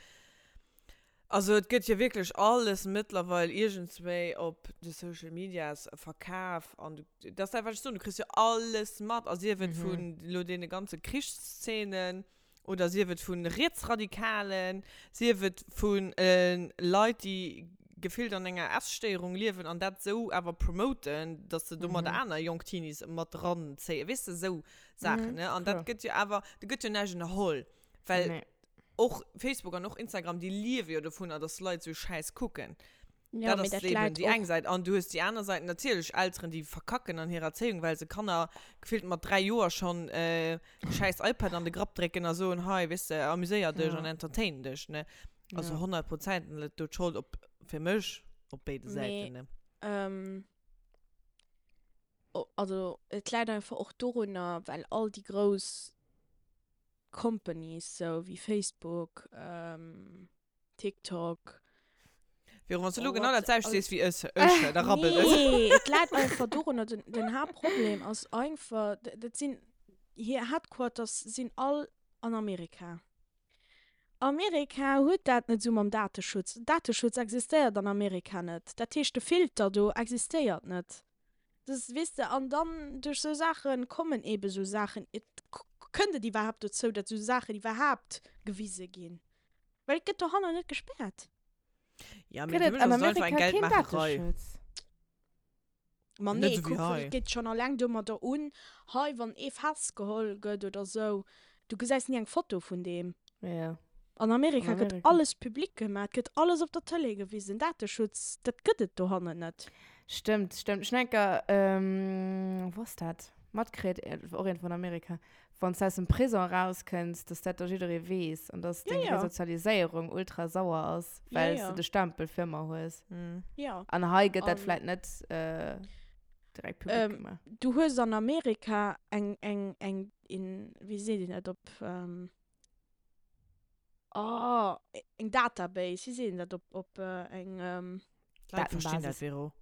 Also et gëtt jo wierklech alles mëttlerweil iergendswéi op de Social Medias verkaf an du, dat ass dat wat ech soen, du kriss jo alles mat a sief et vun elo deene ganze Krichsszenen oder sief et vu Rietsradikalen, sief et vu Leit déi gefillt an enger Esstéierung liewen an dat esou awer promoten, datt se domadder aner jonk Teenies mat eranzéien, weess de, esou Saachen, ne? An dat gëtt jo awer, do gëtt jo näischt ënnerholl, well Och Facebook an och Instagram, déi liewe jo dovunner, dass Leit sou Schäiss kucken. Ja, Dat mee ass dat eben läit déi eng och. Säit. An du hues déi aner Säit, natierlech Elteren, déi verkacken an hirer Erzéiung, well se Kanner gefillt mat 3 Joer schonn e schäiss iPad an de Grapp drécken a soen, hei, weess de, amuséier dech Ja. an entertain dech, ne? Also Ja. 100 Prozent läit do d'Schold op, fir mech, op béide Mee, Säiten, ne? ähm, also et läit einfach och dorunner, well all déi grouss Companies sou wéi Facebook, TikTok. Véro, wann s du elo genau dat selwecht sees wéi ech, ech, da rabbelt et. Nee, et läit einfach dorunner, den, den Haaptproblem ass einfach, dat sinn, hir Headquarters sinn all an Amerika. Amerika huet dat net esou mam Dateschutz. Dateschutz existéiert an Amerika net. Dat heescht, de Filter do existéiert net. Das, weess de, an dann duerch sou Saachen kommen eben sou Saachen. Et. Kënnt et iwwerhaapt dozou, datt esou Saachen iwwerhaapt gewise ginn? Well et gëtt dohanner net gespäert. Ja, mee Gëtt fir et mech an ass et einfach eng Amerika keen Geldmaacherei. Dateschutz? Ma Net nee, esou wéi kuck, hei. et geet schonn alleng domadder un, hei, wann ee festgeholl gëtt oder sou, du gesäis ni eng Foto vun deem. Ja. An An Amerika gëtt Amerika. alles public gemaach, et gëtt alles op der Tëlee gewisen. Dateschutz, dat gëtt et dohannen net. Stëmmt, stëmmt. Ech hunn eng Kéier, wou ass dat, matkritt, och iergendwou an Amerika, wann s du aus dem Prison erauskënns, dass dat da jidderee weess an dass Ja, deng ja. Resozialiséierung ultra sauer ass, Ja, well s ja. du de Stempel fir ëmmer hues. Mhm. Ja. An hei gëtt dat An- vläit net äh, direkt public Ähm, gemaach. Du hues an Amerika eng, eng, eng, een, wéi seet een dat op, ähm, oh, eng Database, wéi seet een dat op, op eng, ähm, D'Leit verstinn dat, Datenbasis. Vero.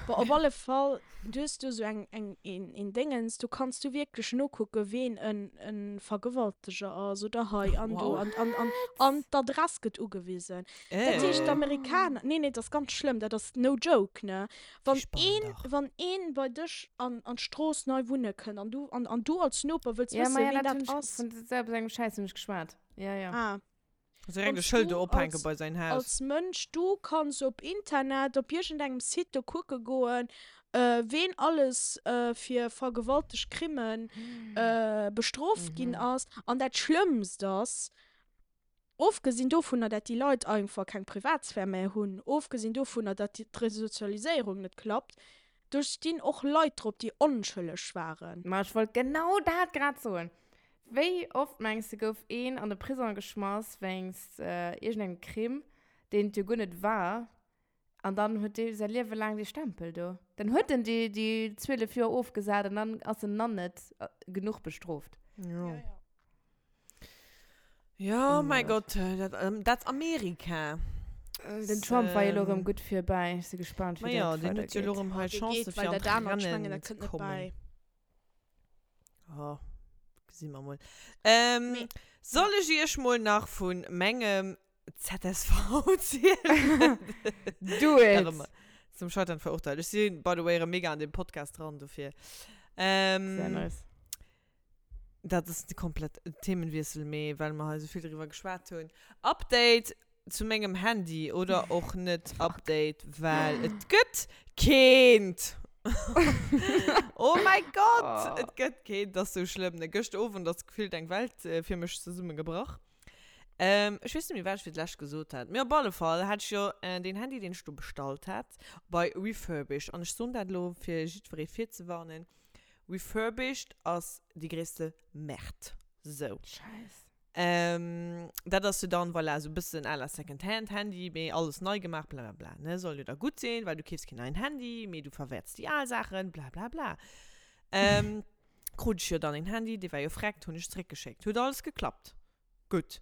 Bon, op alle Fall, du hues do sou eng, eng, een, een Déngens, do kanns du wierklech nokucken, ween en, en Vergewalteger ass oder hei an do Wow. an, an, an, an d'Adress gëtt ugewisen. Dat heescht, Äh. d'Amerikaner, nee, nee, dat ass ganz schlëmm, dat ass no joke, ne? Wann Spannend een, dach. wann een bei dech an, an d'Strooss nei wunne kënnt an du, an, an du als Noper wëlls Ja, wëssen, ma ja, ween dat dat hunn ech, ass. vun selber engem Schäiss hunn ech geschwat. Ja, ja. Ah. Direkt e Wanns Schëld du do ophänke als, bei säin Haus. als Mënsch, du kanns op Internet, op iergendengem Site do kucke goen, ween alles fir vergewaltegt Crimen bestrooft ginn ass. An dat Schlëmmst ass, ofgesinn dovunner, dat déi Leit einfach keng Privatsphär méi hunn, ofgesinn dovunner, dat d'Resozialiséierung net klappt, do stinn och Leit drop, déi onschëlleg waren. Ma ech wollt genau dat grad soen. Wéi oft mengs de gouf een an de Prisong geschmass wéinst iergendengem Crime, deen et jo guer net war, an dann huet dee säi Liewe laang dee Stempel do. Dann huet en déi déi 12 Joer ofgesat an dann ass en nach net genuch bestrooft. Jo. Jo, mäi Gott, dat, dat Amerika. Den Trump war jo elo erëm gutt virbäi. Ech si gespaant, wéi Ma jo, dat deen huet jo elo weidergeet. erëm hei Dee Chancë geet, fir well an dat anert, ech mengen, d'Rennen dat ze kënnt net kommen. bäi. Oh, gesi mer mol. Ähm, Mee, soll ech iech mol nach vun mengem ZSV zielen? Do it! Nach ëmmer zum Scheitern verurteilt. Ech si by the way erëm mega an dem Podcast dran, dofir. Ähm, Sehr nice. Dat ass komplett Themenwiessel, mee well mer hei esou vill driwwer geschwat hunn. Update zu mengem Handy oder och net Update, well et gëtt keent. Oh mäi Gott, et gëtt keent, dat ass sou schlëmm. Ne, gëscht Owend ass gefillt eng Welt fir mech zesummegebrach. Ech weess net méi, wat ech fir d'lescht gesot hat, mee op alle Fall hat ech jo deen Handy, deen ech do bestallt hat, bei Refurbished. An ech soen dat elo, fir jiddweree virzewarnen, Refurbished ass déi gréisste Merde. Sou. Scheiss. Ähm, dat ass jo dann, voilà, sou bëssen à la Second-Hand Handy, mee alles nei gemaach, bla bla bla, ne? Soll jo da gutt sinn, well du keefs keen neien Handy, mee du verwäerts déi al Saachen, bla bla bla. Ähm, krut ech jo dann een Handy, dee war jo vreckt, hunn ech zeréckgeschéckt. Huet alles geklappt. Gutt.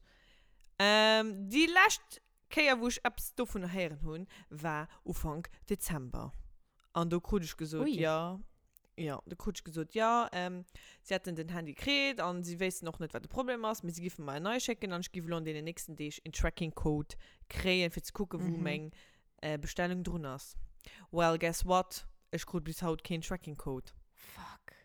Ähm, déi lescht Kéier, wou ech eppes dovunner héieren hunn, war Ufank Dezember. An do krut ech gesot, Ui. jo, jo, do krut ech gesot, jo, si hätten den Handy kritt an si wéissten och net, wat de Problem ass, mee si géife mer en neie schécken an ech géif elo an deenen nächsten Deeg een Tracking-Code kréien, fir ze kucken, wou meng Bestellung drun ass. Well, guess what? Ech krut bis haut keen Tracking-Code. Fuck.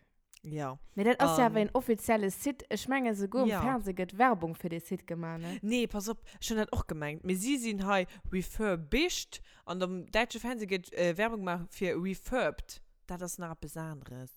Ja. Mee dat ass jo awer An- een offizielle Site. Ech mengen, souguer um Ja. Fernseh gëtt Werbung fir dee Site gemaach, ne? Nee, pass op, ech hunn dat och gemengt. Mee si sinn hei refurbished an am däitsche Fernseh gëtt Werbung gemaach fir refurbed. Dat ass nach eppes aneres.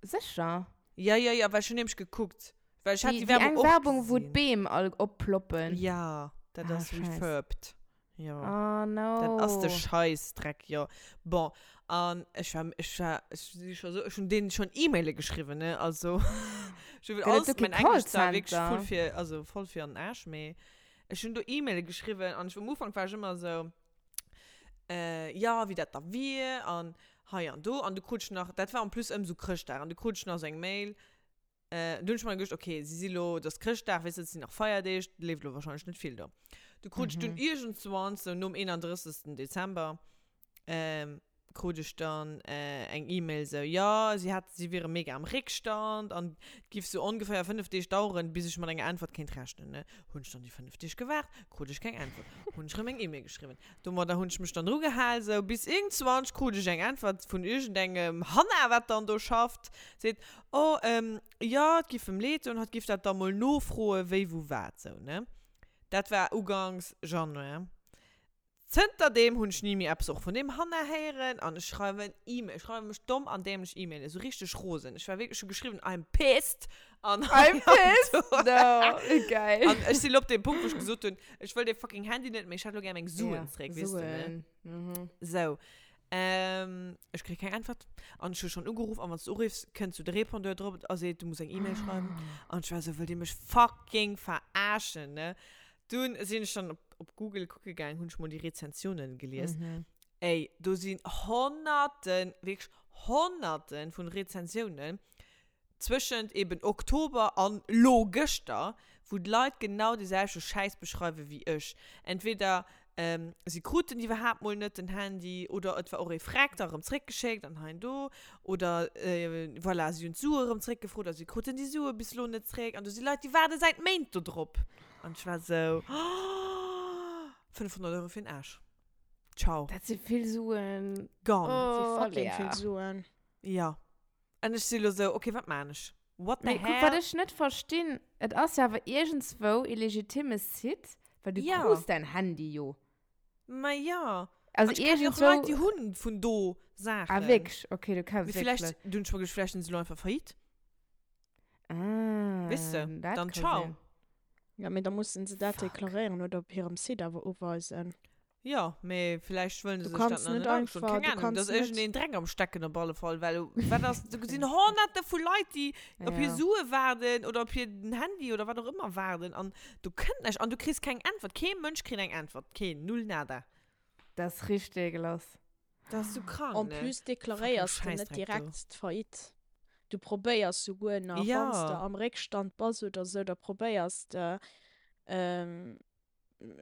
Sécher? Ja, ja, ja, well ech hunn nämlech gekuckt. Well ech hat Déi, déi déi Werbung eng och Werbung, wou gesinn. d'Beem all opploppen. Ja, dat Ah, ass Scheiss. refurbed. Ja. Oh no. Dat ass de Scheißdreck, jo. Bon, an ech war, ech war, ech si scho sou, ech hunn deenen schonn E-Maile geschriwwen, ne, also ech hunn Gëtt et alles, do kee mein Englisch zwar wierklech Callcenter? voll fir, also voll fir an den Aarsch, mee ech hunn do E-Maile geschriwwen an ech, um Ufank war ech ëmmer sou, äh, jo, wéi dat da wier an hei an do an du krut ech nach, dat war en plus ëm sou Chrëschtdag an du krut ech nach sou eng Mail, Äh, du hunn ech mer geduecht, okay, si si lo, et ass Chrëschtdag, weess de, et sinn nach Feierdeeg, et leeft lo wahrscheinlech net vill do. Du krut ech dunn iergendzwann, sou nom 31. Dezember, ähm, krut ech dann eng E-Mail sou, jo, si hat, si wiere mega am Réckstand an et giff sou ongeféier 5 Deeg daueren, bis ech mat enger Äntwert kéint rechnen, ne. Hunn ech dann déi 5 Deeg gewaart, krut ech keng Äntwert. Hunn ech rëm eng E-Mail geschriwwen. Domadder hunn ech mech dann drugehal, sou bis iergendzwann krut ech eng Äntwert vun iergendengem Hanna, wat dann do schafft, seet, oh, jo, et giff em leed doen, hatt giff dat da mol nofroen, wéi, wou, wat, sou, ne. Dat war ugangs Januar. Zënter deem hunn ech ni méi eppes och vun deem Hanna héieren an ech schreiwen E-Mail, ech schreiwe mech domm an dämlech E-Mailen, esou richteg rosen. Ech war wierklech, ech hu geschriwwen I'm pissed an I'm pissed, no, wéi geil. An ech sinn elo op deem Punkt, wou ech gesot hunn, ech wëll dee fucking Handy net méi, ech hätt elo gär meng Suen zréck, weess de, ne? Suen, mhm. Sou, ech kréie keng Äntwert an ech hu schonn ugeruff an wann s du uriffs, kënnt sou de Répondeur drop a seet, du muss eng E-Mail schreiwen an ech war esou, wëllt dir mech fucking verarschen, ne? Dunn sinn ech dann op, op Google kucke gaang, hunn ech mol déi Rezensiounen gelies. Mhm. Ey, do sinn Honnerten, wierklech Honnerten vun Rezensiounen zwëschent eben Oktober an lo gëschter, wou d'Leit genau dee selwechte Schäiss beschreiwe wéi ech. Entweder si kruten iwwerhaapt mol net den Handy oder et war och ee Freck da erëm zréckgeschéckt an hei an do oder voilà, si hunn d'Sue erëm zréckgefrot a si kruten déi Sue bis lo net zréck an do si Leit, déi waarde säit Méint do drop. An ech war sou, oh, 500 Euro fir den Aarsch. Ciao. Dat si vill Suen. Gone. Dat si Oh, fucking Lea. vill Suen. Ja. An ech si lo sou, okay, wat maan ech? What the Mee kuck, hell? wat ech net verstinn, et ass jo awer iergendswou e legitime Site, well du Ja. krus däin Handy jo. Ma ja. Also An ech kennen jo och iergendswou. Leit, déi hunn vun do Saachen. Ah, wierklech? Okay, du kenns Mee wierklech villäicht, Leit. dunn ech mer geduecht, villäicht sinn se lo einfach faillite. Ah, Weess de, dat dann ka ciao. sinn. Ja, mee da mussen se dat Fuck. deklaréieren oder op hirem Site awer uweisen. Jo, mee villäicht wëllen Du se sech dat kanns nach net net agestoen. einfach, Keng du Ahnung, kanns da ass net. iergendeen Dreck am Stecken op alle Fall, well wat ass, do sinn Honnerte vu Leit, déi op hir Ja. Sue waarden oder op hiren Handy oder wat och ëmmer waarden an do kënnt näischt an du kriss keng Äntwert. Kee Mënsch kritt eng Äntwert, keen, null, nada. Dat ass richteg ekelhaft. Dat ass sou krank, En ne? plus Fucking deklaréiers de net Schäissdreck do. direkt d'Faillite. Du probéiers souguer nach, wann s de Ja. am Réckstand bass oder sou, da probéiers de,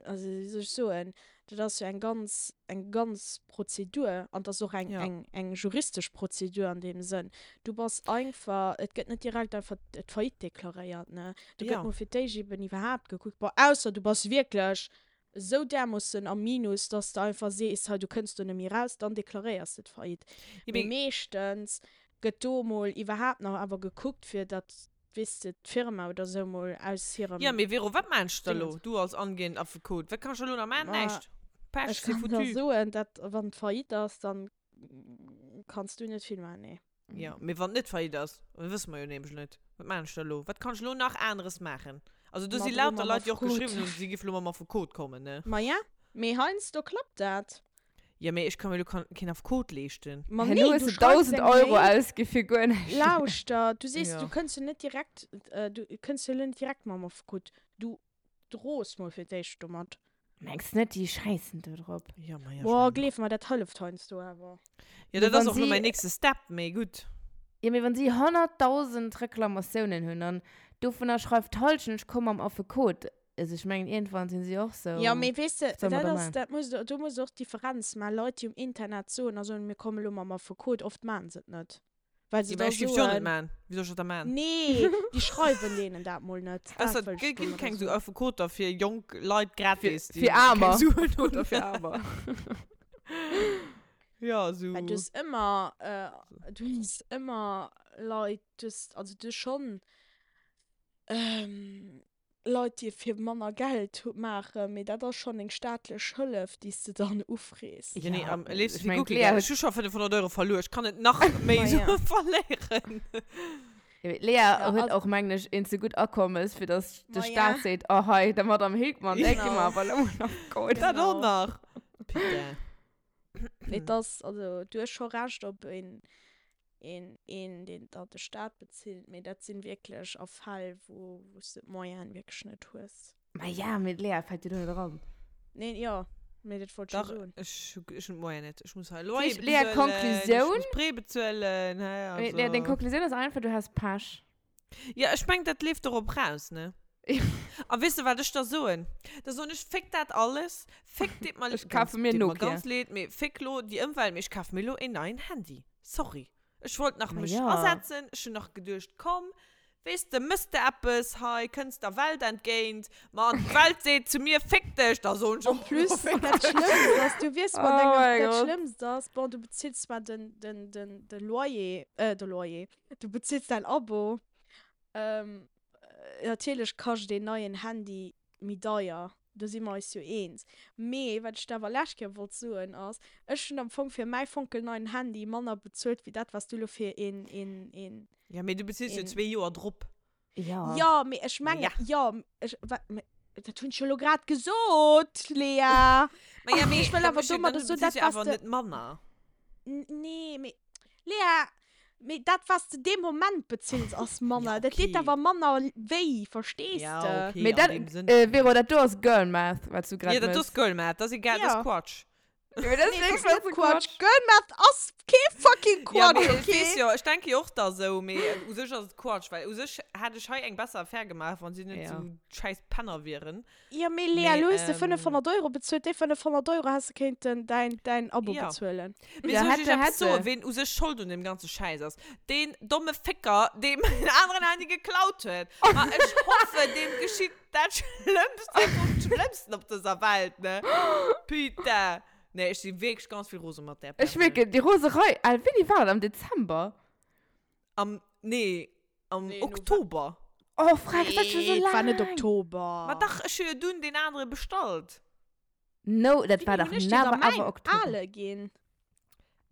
also wéi soll ech soen, dat ass jo eng ganz, eng ganz Prozedur an dat ass och eng, Ja. eng, eng juristesch Prozedur an deem Sënn. Du bass einfach, et gëtt net direkt einfach d'Faillite deklaréiert, ne. Do gëtt Ja. mol fir d'éischt eben iwwerhaapt gekuckt, bon, ausser du bass wierklech esou därmoossen am Minus, dass de einfach sees, hei du kënns do net méi raus, dann deklaréiers de d'Faillite. Ja, Mee mee meeschtens gëtt do mol iwwerhaapt nach awer gekuckt, fir datt, weess de, d'Firma oder esou mol aus Ja, hirem mee Vero, wat meinst du da Dingens. lo? Du als angehend Affekot, wat kann ech da lo nach maachen? Ma Näischt. Pech, ech c'est kann der foutu. soen, dat wann d'Faillite ass, dann kanns du net vill maachen, nee. Ja, mee wann et net Faillite ass, dat wësse mer jo nämlech net. Wat maachen ech da lo? Wat kann ech lo nach aneres maachen? Also do Ma si dro lauter mam Leit, déi och Affekot. geschriwwen hunn, si géife lo mam Affekot kommen, ne? Ma ja, mee heiansdo klappt dat. Ja, mee ech ka mir lo keen Affekot leeschten. Ma Herno nee, hues du du schreifs 1.000 eng Euro Mail. ausgi fir guer näischt. Lauschter, du sees, Ja. du kënns jo net direkt, du kënns jo lo net direkt mam Affekot. Du droos mol fir d'éischt domat. Mengs net, déi schäissen do drop? Ja, ma ja, ech Boah, mengen och. gleef mer, dat hëlleft heiansdo awer. Ja, Mee dat ass wann och lo si, mäin nächste Step, mee gutt. jo, mee wann si 100.000 Reklamatiounen hunn an dovunner schreift d'Hallschent, ech komm mam Affekot, also ech mengen iergendwann sinn si och sou, Ja, mee weess de, wat soll mer dat da ass, maachen? dat muss, do muss de och d'Differenz maachen. Leit, déi um Internet soen a soen, mir komme lo mam Affekot, oft maachen se et net. Well se Ja, mä da ech géif jo net soen, maachen. Wéi soll ech dat da maachen? nee, déi schreiwen deenen dat mol net. Dat Ausser, et wëll ech ginn domadder keng sou soen. Affekoter fir jonk Leit Fir, gratis, déi fir keng Aarmer. Suen hunn. Affekoter fir Aarmer. Ja, Well sou. du hues ëmmer, du hues ëmmer Leit, du hues, also du hues schonn Leit, déi et fir manner Geld maachen, mee dat ass schonn eng staatlech Hëllef, déi s de dann ufrees. Ja, nee, Ja, am léifsten ech fir mengen, guer kee d'Lea Geld. huet Ech hu scho 500 Euro verluer, ech kann net nach méi Ma Sue ja. verléieren. Ja, mee d'Lea Ja, huet also, och, mengen ech, een ze gutt Akommes, fir datt de ma ja, Staat seet, oh hei, der Madame Hilkmann, där gi mer genau, awer elo mol nach Gold. Dat och genau. nach. Putain. Et ass, also du hues scho Recht op een, een, een deen der de Staat bezilt, mee dat sinn wierklech a Fäll, wou, wou s de d'Moyene wierklech net hues. Ma ja, mee d'Lea fält jo do net eran. Nee, jo, mee dat wollt ech jo Dach, soen. ech hu, ech hunn d'Moyene net. Ech muss hei Dat Loyer heescht, Lea, bezuelen, ech Konklusioun? muss Prêt bezuelen, hä, Mee Lea, deng also. Konklusioun ass einfach, du has Pech. Ja, ech meng, dat leeft dorop raus, ne? A weess de, wat ech da soen? Da soen ech, Féck dat alles, féck, deet mer, Ech kafe mir deet mer Nokia. ganz leed, mee féck lo déi Ëmwelt, mee ech kafe mir lo een neien Handy. Sorry. Ech wollt nach Ma mech ja. asetzen, ech hunn nach geduecht, komm, weess de, mëss de eppes hei, kënns der Welt entgéint, ma an d'Welt seet zu mir, féck dech, da soen ech En och plus, lo, féck dat dech. Schlëmmst ass, du wiers mat Oh engem, mein dat Gott. Schlëmmst ass, bon, du bezills zwar den, den, den, de Loyer, äh, de Loyer, du bezills däin Abo, ähm, Natierlech kascht een neien Handy méi deier, do si mer eis jo eens. Mee wat ech der awer lescht Kéier wollt soen ass, ech hunn am Fong fir mäi fonkelneien Handy manner bezuelt wéi dat wat s du elo fir een, een, een. Ja, mee du bezills jo een. zwee Joer drop. Ja. Jo, mee ech mengen, Ja. jo, ech, wat, mee dat hunn ech jo elo grad gesot, Lea. Ma ja, mee Ech wëll da awer méchs jo, domadder dann soen, bezills dat jo wat s awer de. net manner. Nee, mee Lea, mee dat wat s de dee Moment bezills ass manner. Ja, Dat deet okay. awer manner wéi, verstees Ja, de? okay, Mee an dat, deem Sënn. äh, Vero, dat do ass Girl Math, wat s du grad Ja, dat do mëss. ass Girl Math, dat ass egal, dat Ja. ass Quatsch. Ja, mee dat ass Nee, dat wierklech ass net bësse Quatsch. Quatsch. Girl Math ass kee fucking Ja, Quatsch, mee ech okay? weess jo, ech denke jo och da sou, mee u sech ass et Quatsch, well u sech hätt ech hei eng besser Affär gemaach, wann si net Ja. sou schäiss Penner wieren. Ja, mee Lea, Mee, lo hues de ähm, 500 Euro bezuelt. Déi 500 Euro häss de kéinten däin, däin Abo Ja. bezuelen. Mee Ja, soll ech hätte, iech eppes hätte. soen, ween u sech schold un deem ganze Schäiss ass? Deen domme Fécker, dee mäin aneren Handy geklaut huet. Ma ech hoffen, deem geschitt dat Schlëmmste vum Schlëmmsten op dëser Welt, ne? Putain. Nee, ech si wierklech ganz vill rose mat där Ech Persoun. wierken, déi Roserei, al, wéini war dat? Am Dezember? Am, nee, am Nee, November. Oktober. Oh, frech, dat ass schon so Nee, et war net laang. Oktober. Ma dach, ech hu jo dunn deen anere bestallt. No, dat war Wéini dach hunn ech dir da never mäin ever Oktober. ale ginn?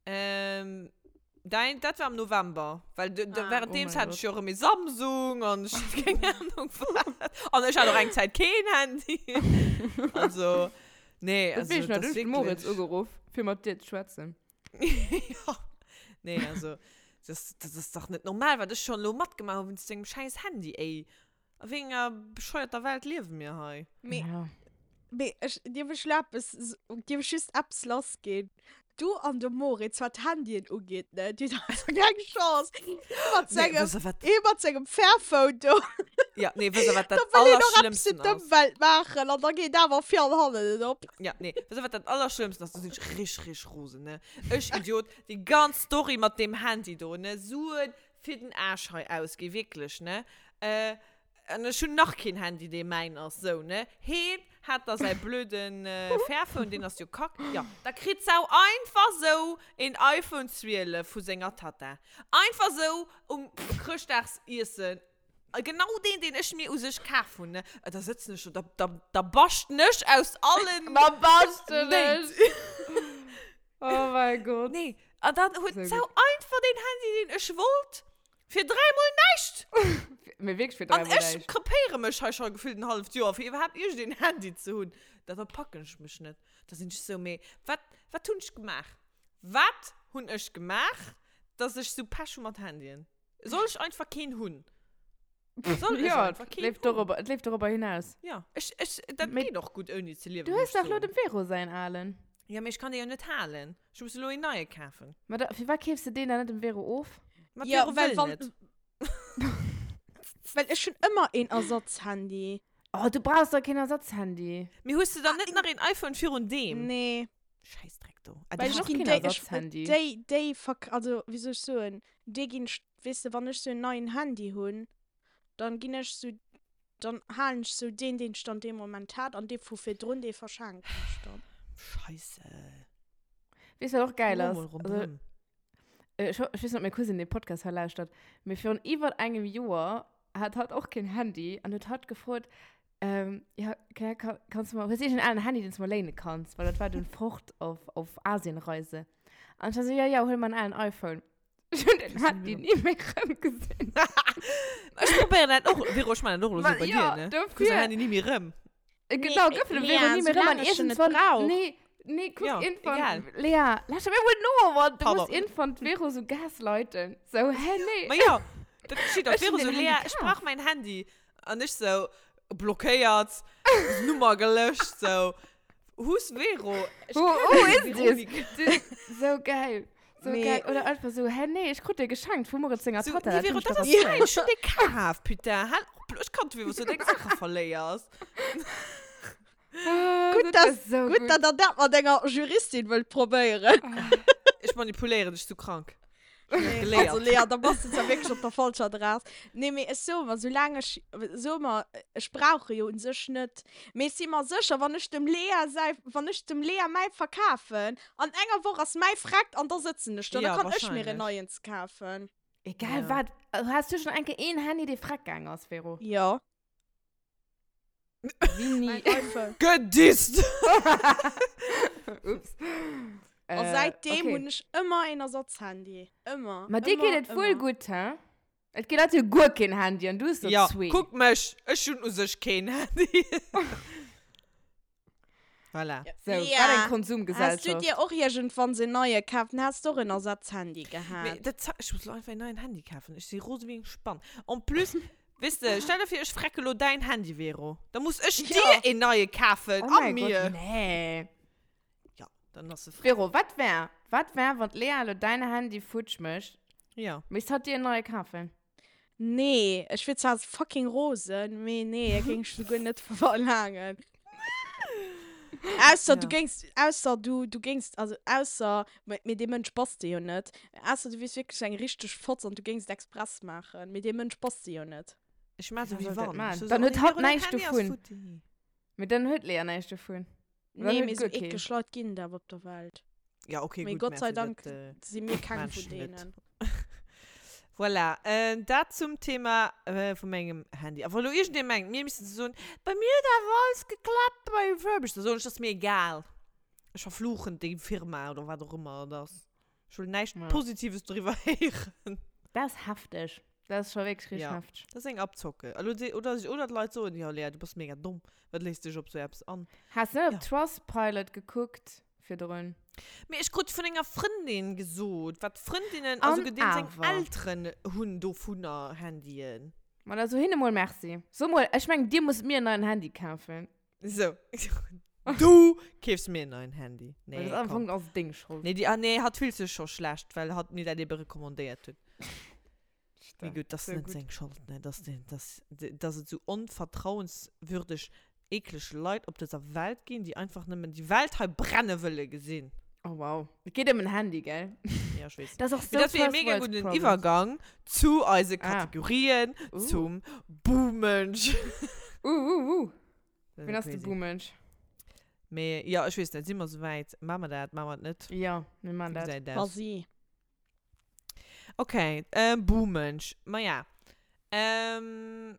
Ähm, dein, dat war am November. Well de, de, Ah. währenddeems Oh mein hat ech jo erëm ee Samsung an ech hat keng Ahnung wat. An ech hat och eng Zäit keen Handy. Also, nee, Dat also, weess ech nach, dat du ass hues de Moritz wierklech. ugeruff, fir mat dir ze schwätzen. Ja. Nee, also, das, das ist dach net normal, wat ech schon lo matgemaach hu wéinst dengem schäiss Handy, ey. A wéi enger bescheuerter Welt liewe mir hei? Mee, Ja. mee ech, dierf ech lo eppes, dierf ech just eppes lassginn? Du an de Moritz, wat d'Handyen ugeet, ne, dir hutt einfach keng Chance. Ee mat Nee, sengem, wësst der wat, ee mat sengem Fairphone do. ja, nee, wësst der wat Da dat wëll een och eppes fir Allerschlimmsten ass? d'Ëmwelt maachen an da geet awer vir an hannen net op. Ja, nee, wësst der wat dat Allerschlimmsten ass? Do sinn ech rich, rich rosen, ne. Ech Idiot, déi ganz Story mat deem Handy do, ne, Suen fir den Aarsch hei ausgi, wierklech, ne. Äh, an ech hunn nach keen Handy, dee mäin ass, sou, ne. Heen hat da säi blöden Fairphone, deen ass jo kack. Jo, da kritt d'Sau einfach sou een iPhone 12 vu senger Tatta. Einfach sou um Chrëschtdagsiessen. Genau deen, deen ech mir u sech kaf hunn, ne. Da sëtzen ech do, da, da, da baschten ech aus allen Da baschten Néit. ech! Oh mein Gott. Nee, an dann huet Sou d'Sau gutt. einfach deen Handy, deen ech wollt, fir dräimol näischt. Mee wierklech fir An dräimol ech näischt. krepéiere mech hei scho gefillt en halleft Joer, fir iwwerhaapt iergendeen Handy ze hunn. Da verpacken ech mech net. Da sinn ech sou, mee wat, wat hunn ech gemaach? Wat hunn ech gemaach, dass ech sou Pech hu mat Handyen? Soll ech einfach keen hunn? Soll ech Ja, einfach et keen leeft hunn? dorobber, et leeft dorobber hinaus. Ja, ech, ech, dat Mee geet och gutt ouni ze liewen, du muss hues ech dach lo soen. dem Vero säin alen. Ja, mee ech kann dee jo net halen. Ech muss elo een neie kafen. Ma da, firwat keefs de deen dann net dem Vero of? Ma Ja, d'Vero well wëll wann, net. well ech hunn ëmmer een Ersatzhandy. Oh, du brauchs doch keen Ersatzhandy. Mee hues de dann net nach een iPhone virun deem? Nee. Schäissdreck do. Ah, Well du ech hues och ginn keen déi, ech, Ersatzhandy. déi, déi verk, also wéi soll ech soen, déi ginn, weess de, wann ech sou en neien Handy hunn, dann ginn ech sou, dann halen ech sou deen, deen ech dann dee Moment hat, an dee vu virdrun, dee verschenken ech dann. Scheisse. Weess wat och geil ass? Mol Also, ronderëm. ech, ho- ech weess net, ob meng Cousine dee Podcast hei lauschtert, mee virun iwwer engem Joer hat hatt och keen Handy an huet hatt gefrot, ähm, ja, Claire, ka, kanns du mer, hues du iergend en alen Handy, deen s du mer léine kanns? Well dat war dunn fort op, op Asienreise. An ech war sou, ja, ja, huel mer en alen iPhone. Ech hunn den Handy ni méi rëmgesinn. Ech probéieren dat och, Vero, ech maachen dat och elo sou bei Ja, dir, ne? Du kriss dofir. dein Handy ni méi rëm. Genau, Nee, gouf den Lea, Vero ni méi rëm soulaang an ech en net iergendswann. brauch. Nee, nee, kuck, Ja, iergendwann. egal. Lea, lauschter mir mol no, Mann. Du Pardon. muss iergendwann d'Vero sou gaslighten. Sou, hä, nee. Ma ja, dat geschitt och. Ech hunn Vero sou, den Lea, Handy ech kaf. brauch mäin Handy. An ech sou, blockéiert, Nummer gelöscht, sou. Who's Vero? Ech Who, kenn who déi is this? Veronika. Sou geil. So Nee. geil. Oder einfach so, hä, nee, ich krut dee geschenkt vu Moritz senger So, Tatta. nee, Dat Vero, hunn ech dat doch ass erzielt. mäin, ech hunn dee kaf, putain. Hal op. Ech kann dofir, wou s du deng Saache verléiers. Gutt, dass, gutt, dass der dat mat enger Juristin wëllt probéieren. Ech manipuléieren dech, du krank. Nee, also Lea, da bass du zwar wierklech op der falscher Adress. Nee, mee ech soe mer, soulaang ech, soe mer, ech brauche jo un sech net, mee ech si mer sécher, wann ech dem Lea säi, wann ech dem Lea mäi verkafen, an enger Woch ass mäi vreckt an da sëtzen ech do, da kann ech mir en neien kafen. Egal wat, has du schonn eng Kéier een Handy, dee freck gaang ass, Vero? Jo. Wéini? Gedisst! Ups. A säitdeem hunn ech ëmmer een Ersatzhandy. Ëmmer. Ma dir geet et wuel gutt, he? Et gi Leit, déi hu guer keen Handy an du hues der zwee. Jo, kuck mech, ech hunn u sech keen Handy. Voilà. Sou, wat eng Konsumgesellschaft. Has du dir och iergendwann en neie kaf? Dann häss de och en Ersatzhandy gehat. Mee dat za-, ech muss lo einfach en neien Handy kafen. Ech si rose wéi eng Spann. En plus, weess de, stell der vir, ech frecke lo däin Handy, Vero. Da muss ech dir en neie kafen. Oh A mäi Gott, mir. nee. Ja, dann ass e freck. Vero, wat wär, wat wär, wann d'Lea lo däin Handy futsch mécht? Ja. Misst hatt dir en neie kafen? Nee, ech wier zwar fucking rosen, mee nee, dat géing ech souguer net verlaangen. Ausser du géings, ausser du, du géings, also ausser, mee dee Mënsch bass de jo net, ausser du wiers wierklech eng richteg Fotz an du géings et express maachen, mee dee Mënsch bass de jo net. Ech maa sou wéi wann. Dann huet hatt näischt dovun. Mee dann huet d'Lea näischt dovun. Nee, mee sou eklech Leit ginn et awer op der Welt. Ja, okay, Mee gutt, Gott sei mä fir Dank dat, äh, si mir keng vun Menschen net. deenen. Voilà, äh, dat zum Thema äh, vu mengem Handy. A wa lo iergendee mengt, mir missten ze soen, bei mir huet awer alles geklappt bei Refurbished, da soen ech, dat ass mir egal. Ech verfluchen déi Firma oder wat och ëmmer et ass. Ech wëll näischt Ja. Positives doriwwer héieren. Dat ass hefteg. Dat ass scho wierklech richteg Ja. hefteg. Dat ass eng Abzocke. Elo se, oder, oder d'Leit soen, jo Lea, du bass mega domm, wat léiss dech op sou eppes an? Has net op Ja. Trustpilot gekuckt virdrun? Mee ech krut vun enger Frëndin gesot, wat Frëndinnen, also An deem seng awer. Elteren hunn dovunner Handyen. Ma da so hinne mol Merci. So mol, ech mengen, dir musst mir en neien Handy kafen. So. Du keefs mir en neien Handy. Nee, Nee, das am komm. Fong ass deng Schold. Nee, die, ah, nee, hat fillt sech scho schlecht, well hat mir dat ebe recommandéiert huet. Mee gutt, das So net gut. seng Schold, ne, dass, den, dass, dass et sou onvertrauenswürdeg, eekleg Leit op dëser Welt ginn, déi einfach nëmmen déi Welt hei brenne wëlle gesinn. Oh wow. Et geet ëm en Handy, gell? Ja, ech weess. Dat ass och Mee sou dat wier e first mega world gudden problems. Iwwergang zu eise Ah. Kategorien, Uh. zum Buhmensch. Uh, uh, uh. Dat Wien ass de crazy. Buhmensch? Mee ja, ech weess net, si mer souwäit? Maache mer dat, maache mer et net? Ja, mir maachen Wéi dat. gesäit et aus? Vas-y. Okay, ähm, Buhmensch. Maja. Ähm,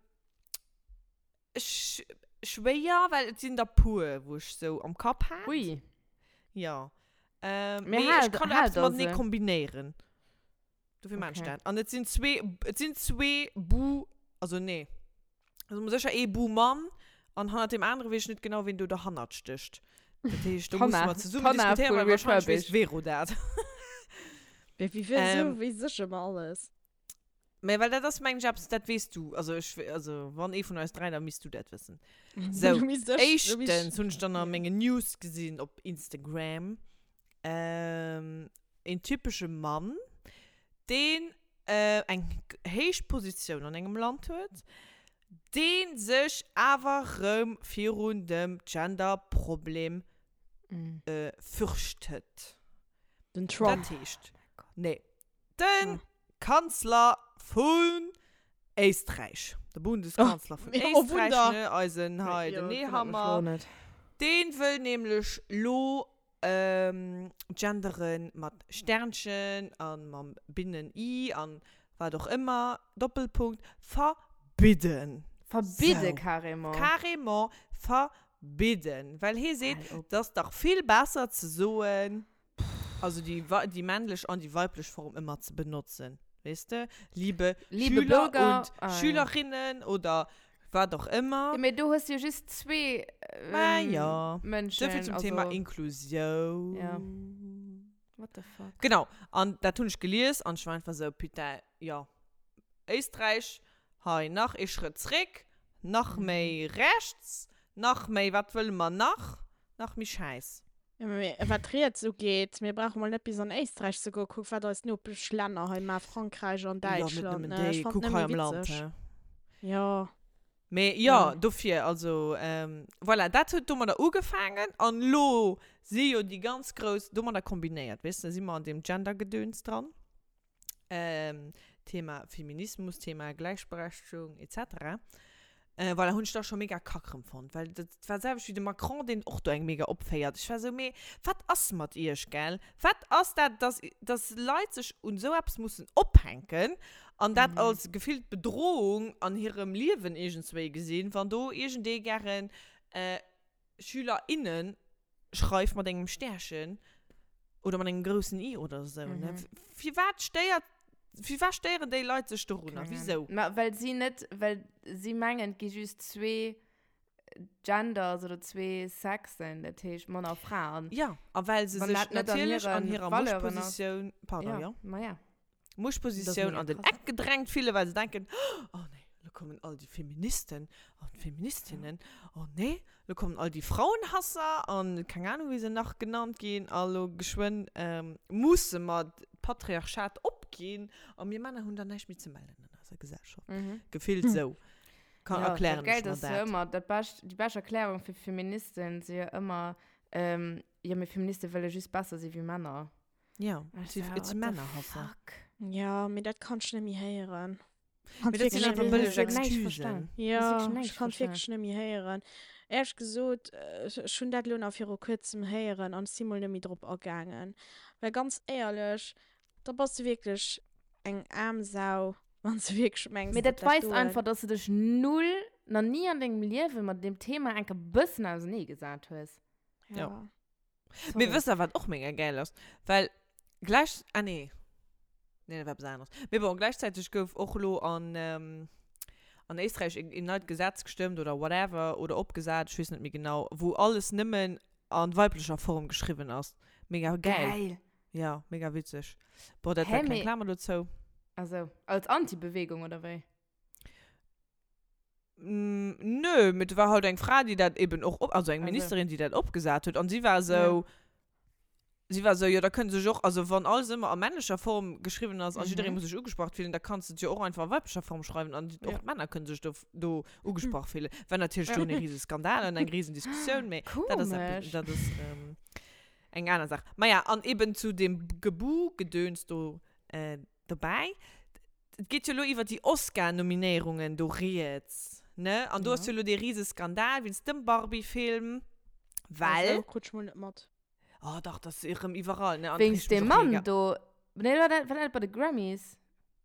ech, schwéier, well et sinn der puer, wou ech sou am Kapp hat. Ui. Ja. Ähm, Mee mee hal, ech kann hal eppes der matenee se. kombinéieren. Dofir maan ech Okay. dat. An et sinn zwee, et sinn zwee Bu, also nee. Also sécher ee Bu-Mann an hannert deem anere weess ech net genau, ween do derhannert stécht. Dat heescht, do musse D'Hanna, mer zesummen d'Hanna diskutéieren, vu well wahrscheinlech weess Refurbished. d'Vero dat. Wéi, wéi, wéi, Ähm. sou weess ech ëmmer alles. Mä well dat ass, mengen ech, eppes, dat weess du. Also ech, also wann ee vun eis dräi, da misst du dat wëssen. Sou, Du misst ech, du misst éischtens hunn ech dann a mengen News gesinn op Instagram, ähm, een typesche Mann, deen eng héich Positioun an engem Land huet, dee sech awer rëm virun dem Gender-Problem fürchtet. Den Trump. Dat heescht, nee, de Kanzler vun Éisträich, de Bundeskanzler vun Éisträich, ne, eisen hei, den Nehammer, dee wëll nämlech lo Genderen mat Sternchen an mam Binnen i an wat och ëmmer, Doppelpunkt, verbidden. Verbidde carrément. Carrément verbidden. Well hee seet, et ass dach vill besser ze soen, also déi, déi männlech an déi weiblech Form ëmmer ze benotzen. Weess de? Liebe, Liebe Schüler Bürger, und ah, ja. Schülerinnen oder wat och ëmmer. Ja, mee do hues du jo just zwee Ma ja. Mënschen. Souvill zum also, Thema Inklusioun. Ja. What the fuck? Genau, an dat hunn ech gelies an ech war einfach sou, putain, jo, Éisträich, hei nach ee Schrëtt zréck, nach méi rechts, nach méi, wat wëlle mer nach? Nach méi Schäiss. Ja, mee wat riets ugeet, mir brauche mol net bis an Éisträich ze goen, kuck wat eis Nopeschlänner hei maachen, Frankräich an Jo, net Däitschland, nëmmen ne? Ech déi, fannen kuck et hei nëmme am Land, witzeg. he. Jo. Mee jo, dofir, also voilà, dat huet domadder ugefaangen an elo si jo déi ganz grouss, domadder kombinéiert, weess de, si mer an deem Gender-Gedöns dran, Thema Feminismus, Thema Gläichberechtegung et cetera. Voilà, hunn ech da scho mega kack erëm fonnt, well dat war d'selwecht wéi de Macron, deen och do eng mega opféiert. Ech war esou, mee wat ass mat iech, gell? Wat ass dat, dass, dass Leit sech un esou eppes mussen ophänken an dat als gefillt Bedrohung an hirem Liewen iergendswéi gesinn, wann do iergendee gären Schüler, innen schreift mat engem Stärchen oder mat engem groussen I oder esou, ne? Firwat stéiert, firwat stéieren déi Leit sech dorunner? Wisou? Ma well si net, well si mengen, et gi just zwee Genders oder zwee Sexen, dat heescht Mann a Fra. An Ja, a well se wann sech dat net an natierlech an hiren hirer Valeuren ass. Muchtpositioun, pardon, Ja, jo. ma ja. Muchtpositioun an den Eck gedrängt fillen, well se denken, oh nee, lo kommen all déi Feministen an d'Feministinnen, oh nee, lo kommen all déi Frauenhasser an keng Ahnung, wéi se nach genannt ginn, a lo geschwënn musse mer d'Patriarchat opginn a mir Männer hunn dann näischt méi ze mellen an eiser Gesellschaft. Gefillt esou kann, erklären ech mer dat. dat. Ëmmer dat bescht, déi bescht Erklärung fir Feministen si jo ëmmer, jo, mir Feministe wëlle just besser si wéi Männer. Ja, et si, et si Männerhasser. Ja, mee dat kann ech net méi héieren. Mee dat sinn einfach bëlleg Excusen. Ja, ech kann et wierklech net méi héieren. Éierlech gesot, ech hunn dat elo nach viru kuerzem héieren an ech si mol net méi drop agaangen. Well ganz éierlech, da bass de wierklech eng aarm Sau, wann s de wierklech mengs, Mee datt dat dat weist doen. einfach, dass du dech null, nach ni an dengem Liewe mat deem Thema enke bëssen auserneegesat hues. Ja. Mee wësst der, wat och mega gäil ass? Well gläich, ah nee, nee, dat war eppes aneres. Mee bon, gläichzäiteg gouf och elo an, an Éisträich een, een neit Gesetz gestëmmt oder whatever oder opgesat, ech weess net méi genau, wou alles nëmmen a weiblecher Form geschriwwen ass. Mega gäil. Geil! Ja, mega witzeg. Bon, dat Hä, war kleng mee. Klamer dozou. Also, als Anti-Bewegung oder wéi? Nö, mee et war halt eng Fra, déi dat eben och, also eng Ministerin, déi dat opgesat huet. An si war esou, si war esou, jo da kënne sech och, also wann alles ëmmer a männlecher Form geschriwwen ass a jidderee muss sech ugesprach fillen, da kanns de et jo och einfach a weiblicher Form schreiwen an och d'Männer kënne sech do, do ugesprach fillen. War natierlech do e rise Skandal an eng risen Diskussioun, mee dat ass eppes, dat ass eng aner Saach. Maja, an eben zu deem Gebu-Gedöns do, Dobäi, et geet jo elo iwwer déi Oscar-Nominéierungen do rieds, ne? An do ass jo elo dee rise Skandal wéinst dem Barbie-Film, well. Also, krut ech mol net mat. Oh dach, dat ass erëm iwwerall, ne? An Wéinst et reegt deem mech och Mann mega. do. Nee, war dat, war dat net bei de Grammys?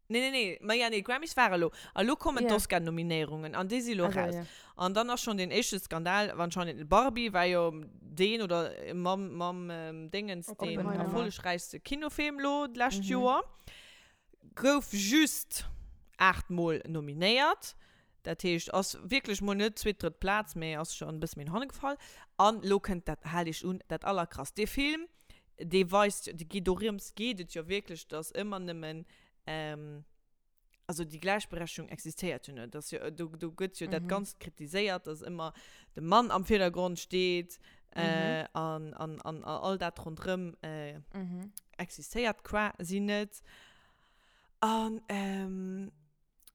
Nee, nee, nee, ma ja, nee, d'Grammys ware elo. A lo kommen Ja. d'Oscar-Nominéierungen an déi si elo Also, raus. ja. An dann ass schonn deen éischte Skandal, anscheinend Barbie war jo deen oder mam, mam Déngens deen Oppenheimer. erfollegräichste Kinofilm lo d'lescht Joer. Gouf just 8 Mol nominéiert. Dat heescht, ass wierklech mol net zweet, drëtt Plaz, mee ass schonn e bësse méi no hanne gefall. An lo kënnt dat, haalt iech un, dat Allerkrasst. Dee Film, dee weist, dee geet dorëms geet et jo wierklech, dass ëmmer nëmmen, also déi Gläichberechtigung existéiert jo net. Dass jo, do, do gëtt jo dat Ganzt kritiséiert, dass ëmmer de Mann am Virdergrond steet an, an, an all dat ronderëm existéiert quasi net. An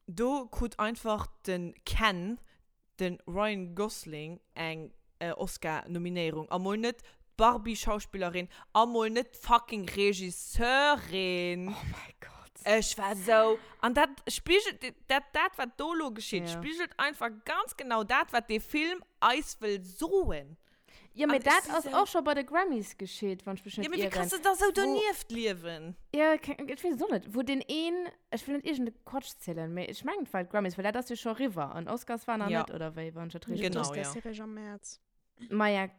do krut einfach de Ken, de Ryan Gosling eng Oscar-Nominéierung a mol net d'Barbie-Schauspillerin a mol net d'fucking Regisseurin. Oh mäi Gott. Ech war sou, an dat spigelt, dat, dat wat do lo geschitt, Ja. spigelt einfach ganz genau dat, wat dee Film eis wëll soen. Ja, mee An ech dat si ass sou- och scho bei de Grammys geschitt, wann ech mech Ja, net mee wéi ieren. kanns de da sou Wo- donieft liewen? Ja, ke- ech weess et och net. Wou deen een, ech wëll net iergende Quatsch zielen, mee ech mengen et war d'Grammys, well dat ass jo scho eriwwer an Oscars war nach Ja. net, oder wéi, wann ech dat richteg Genau, D'Oscars ja. si réischt am Mäerz. Maja,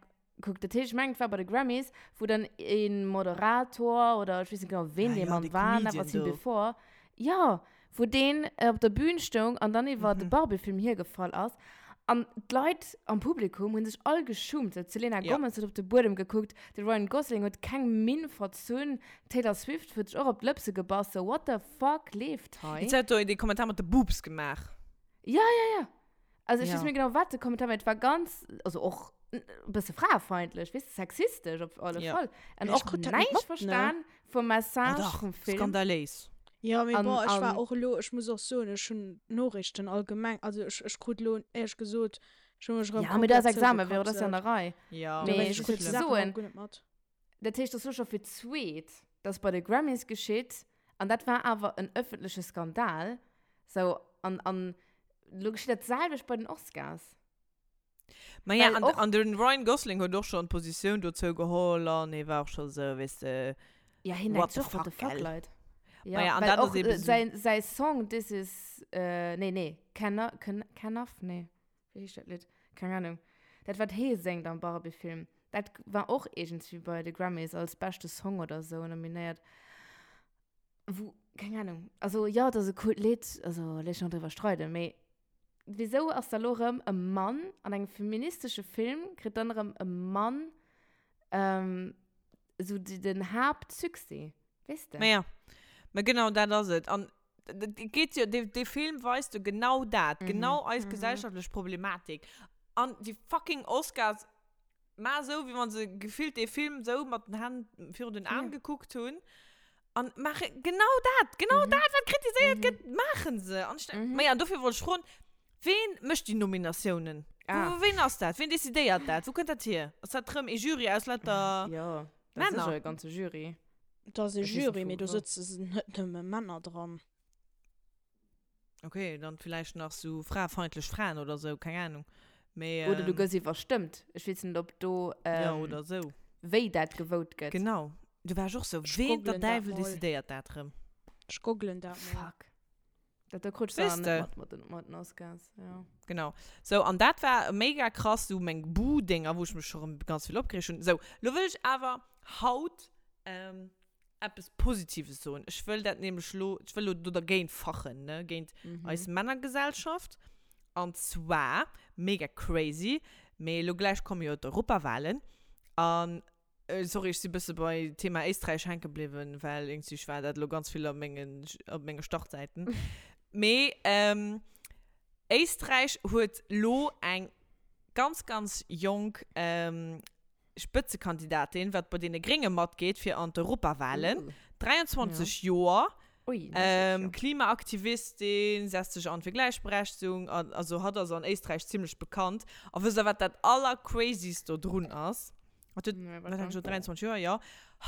kuck, dat heescht, ech mengen et war bei de Grammys, wou dann ee Moderator oder ech weess net genau, ween Ah dee ja, Mann dee war, Comedian never seen do. before, jo, wou deen op der Bühn stoung an dann iwwer de Barbie-Film hiergefall ass. An d'Leit am Publikum hu sech all geschummt. D'Selena Ja. Gomez huet op de Buedem gekuckt, de Ryan Gosling huet keng Minn verzunn, d'Taylor Swift huet sech och op d'Lëpse gebass. So, what the fuck leeft hei? Jetzt hat do dee Kommentar mat de Boobs gemaach. Ja, ja, ja. Also ech Ja. weess net méi genau, wat de Kommentar war. Et war ganz, also och e bësse fraefeindlech, weess de, sexistesch op alle Ja. Fall. An Ech och krut dat net näischt mat, ne? verstan vum Oh Message dach, vum Film. skandaléis. Jo, mee An, bon, ech war an och elo, ech muss och soen, ech hunn d'Noriichten allgemeng, also ech, ech krut elo, éierlech gesot, ech hu mech erëm Ja, mee da ass komplett Examen, Véro, dat ass jo an zougekapselt. der Rei. Ja, Mee Dowéinst, ech ech krut wollt déi Saachen soen, och guer net mat. dat heescht, dat ass elo scho fir d'zweet, dass bei de Grammys geschitt, an dat war awer en ëffentleche Skandal, sou, an, an elo geschitt dat selwecht bei den Oscars. Ma ja, Well an, och- an den Ryan Gosling huet och schonn Positioun dozou geholl an hie war och scho sou, weess de, Ja, hien What denkt the och, what the fuck, fuck, gell? Leit. Ja, Ma ja, an well dat ass och, eben äh, so- säin, säi Song This is, äh, nee, nee, Can, Can, Can-Off? Nee, wéi heescht dat Lidd? Keng Ahnung. Dat, wat hie séngt am Barbie-Film, dat war och iergendwéi bei de Grammys als beschte Song oder sou nominéiert. Wou, keng Ahnung. Also, ja, dat ass e coolt Lidd, also, léisst sech nach driwwer streiden, mee Wisou ass da lo rëm e Mann an engem feministesche Film, kritt dann rëm e Mann ähm, esou den Haaptsuccès, weess de? Ma ja, ma genau dat ass et. An et geet jo, dee, dee Film weist jo genau dat, genau eis gesellschaftlech Problematik. An déi fucking Oscars maachen esou, wéi wa se gefillt dee Film esou mat den Hänn virun den Aen gekuckt hunn. An maache genau dat, genau dat, wat kritiséiert gëtt, maachen se. An ech denk, ma ja, dofir wollt ech froen, ween mécht déi Nominatiounen? Ah. Wou, ween ass dat? Ween decidéiert dat? Wou kënnt dat hier? Ass dat rëm ee Jury aus lauter Jo, dat ass Männer? sécher e ganze Jury. Dat ass e Ech weess net, Jury, wou, mee do wou. sëtze net nëmme Männer dran. Okay, dann vielleicht nach so fraefeindlech Fraen oder so, keng Ahnung. Mee, Oder du ähm, gëss iwwerstëmmt. Ech weess net, ob do, ja, ähm, oder so. wéi dat gewout gëtt. Genau. Do war ech och so, Ech ween der googlen dat Däiwel mol. decidéiert dat rëm? Ech googlen dat mol. Fuck. Dat do krut ech Weess dann de? net mat, mat den, mat den Oscars, ja. Genau. So, an dat war mega krass, so meng Buh-Dinger, wou ech mech scho rëm ganz vill opgereegt hunn. So, lo wëll ech awer haut, ähm, eppes Positives soen. Ech wëll dat nämlech lo, ech wëll lo do dergéint fachen, ne, géint eis Männergesellschaft. An zwar, mega crazy, mee lo gläich komme jo d'Europawahlen. An, sorry, ech si bësse bei Thema Éisträich hänke bliwwen, well iergendwéi war dat lo ganz vill op mengen, op menge Startsäiten. Mee, Éisträich huet lo eng ganz, ganz jonk Spëtzekandidatin, wat bei deene Grénge matgeet fir an d'Europawahlen. 23 Joer, Klimaaktivistin, setzt sech an fir Gläichberechtegung an, also hatt ass an Éisträich zimmlech bekannt. A wësst der wat dat allercrazyst do drun ass? Hatt huet, wat hat ech gesot, 23 Joer, jo.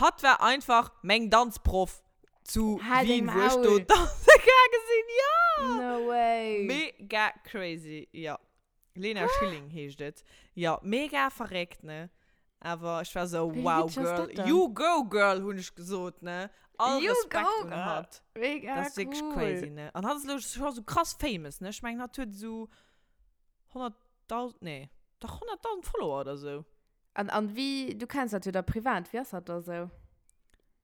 Hatt war einfach meng Danzproff zu Wien, wou ech do danze gaange sinn, jo! No way! Mega crazy, jo. Lena Schilling heescht et. Jo, mega verréckt, ne? Awer ech war sou, Wéi wow, witzeg ass girl, dat dann? you go, girl, hunn ech gesot, ne? All You Respekt go, un girl. hatt. Mega Dat ass wierklech cool. crazy, ne? An hatt ass elo scho sou krass famous, ne? Ech mengen, hatt huet esou 100.000, nee, dach 100.000 Follower oder sou. An, an wéi, du kenns dat jo da privat, wéi ass dat da sou?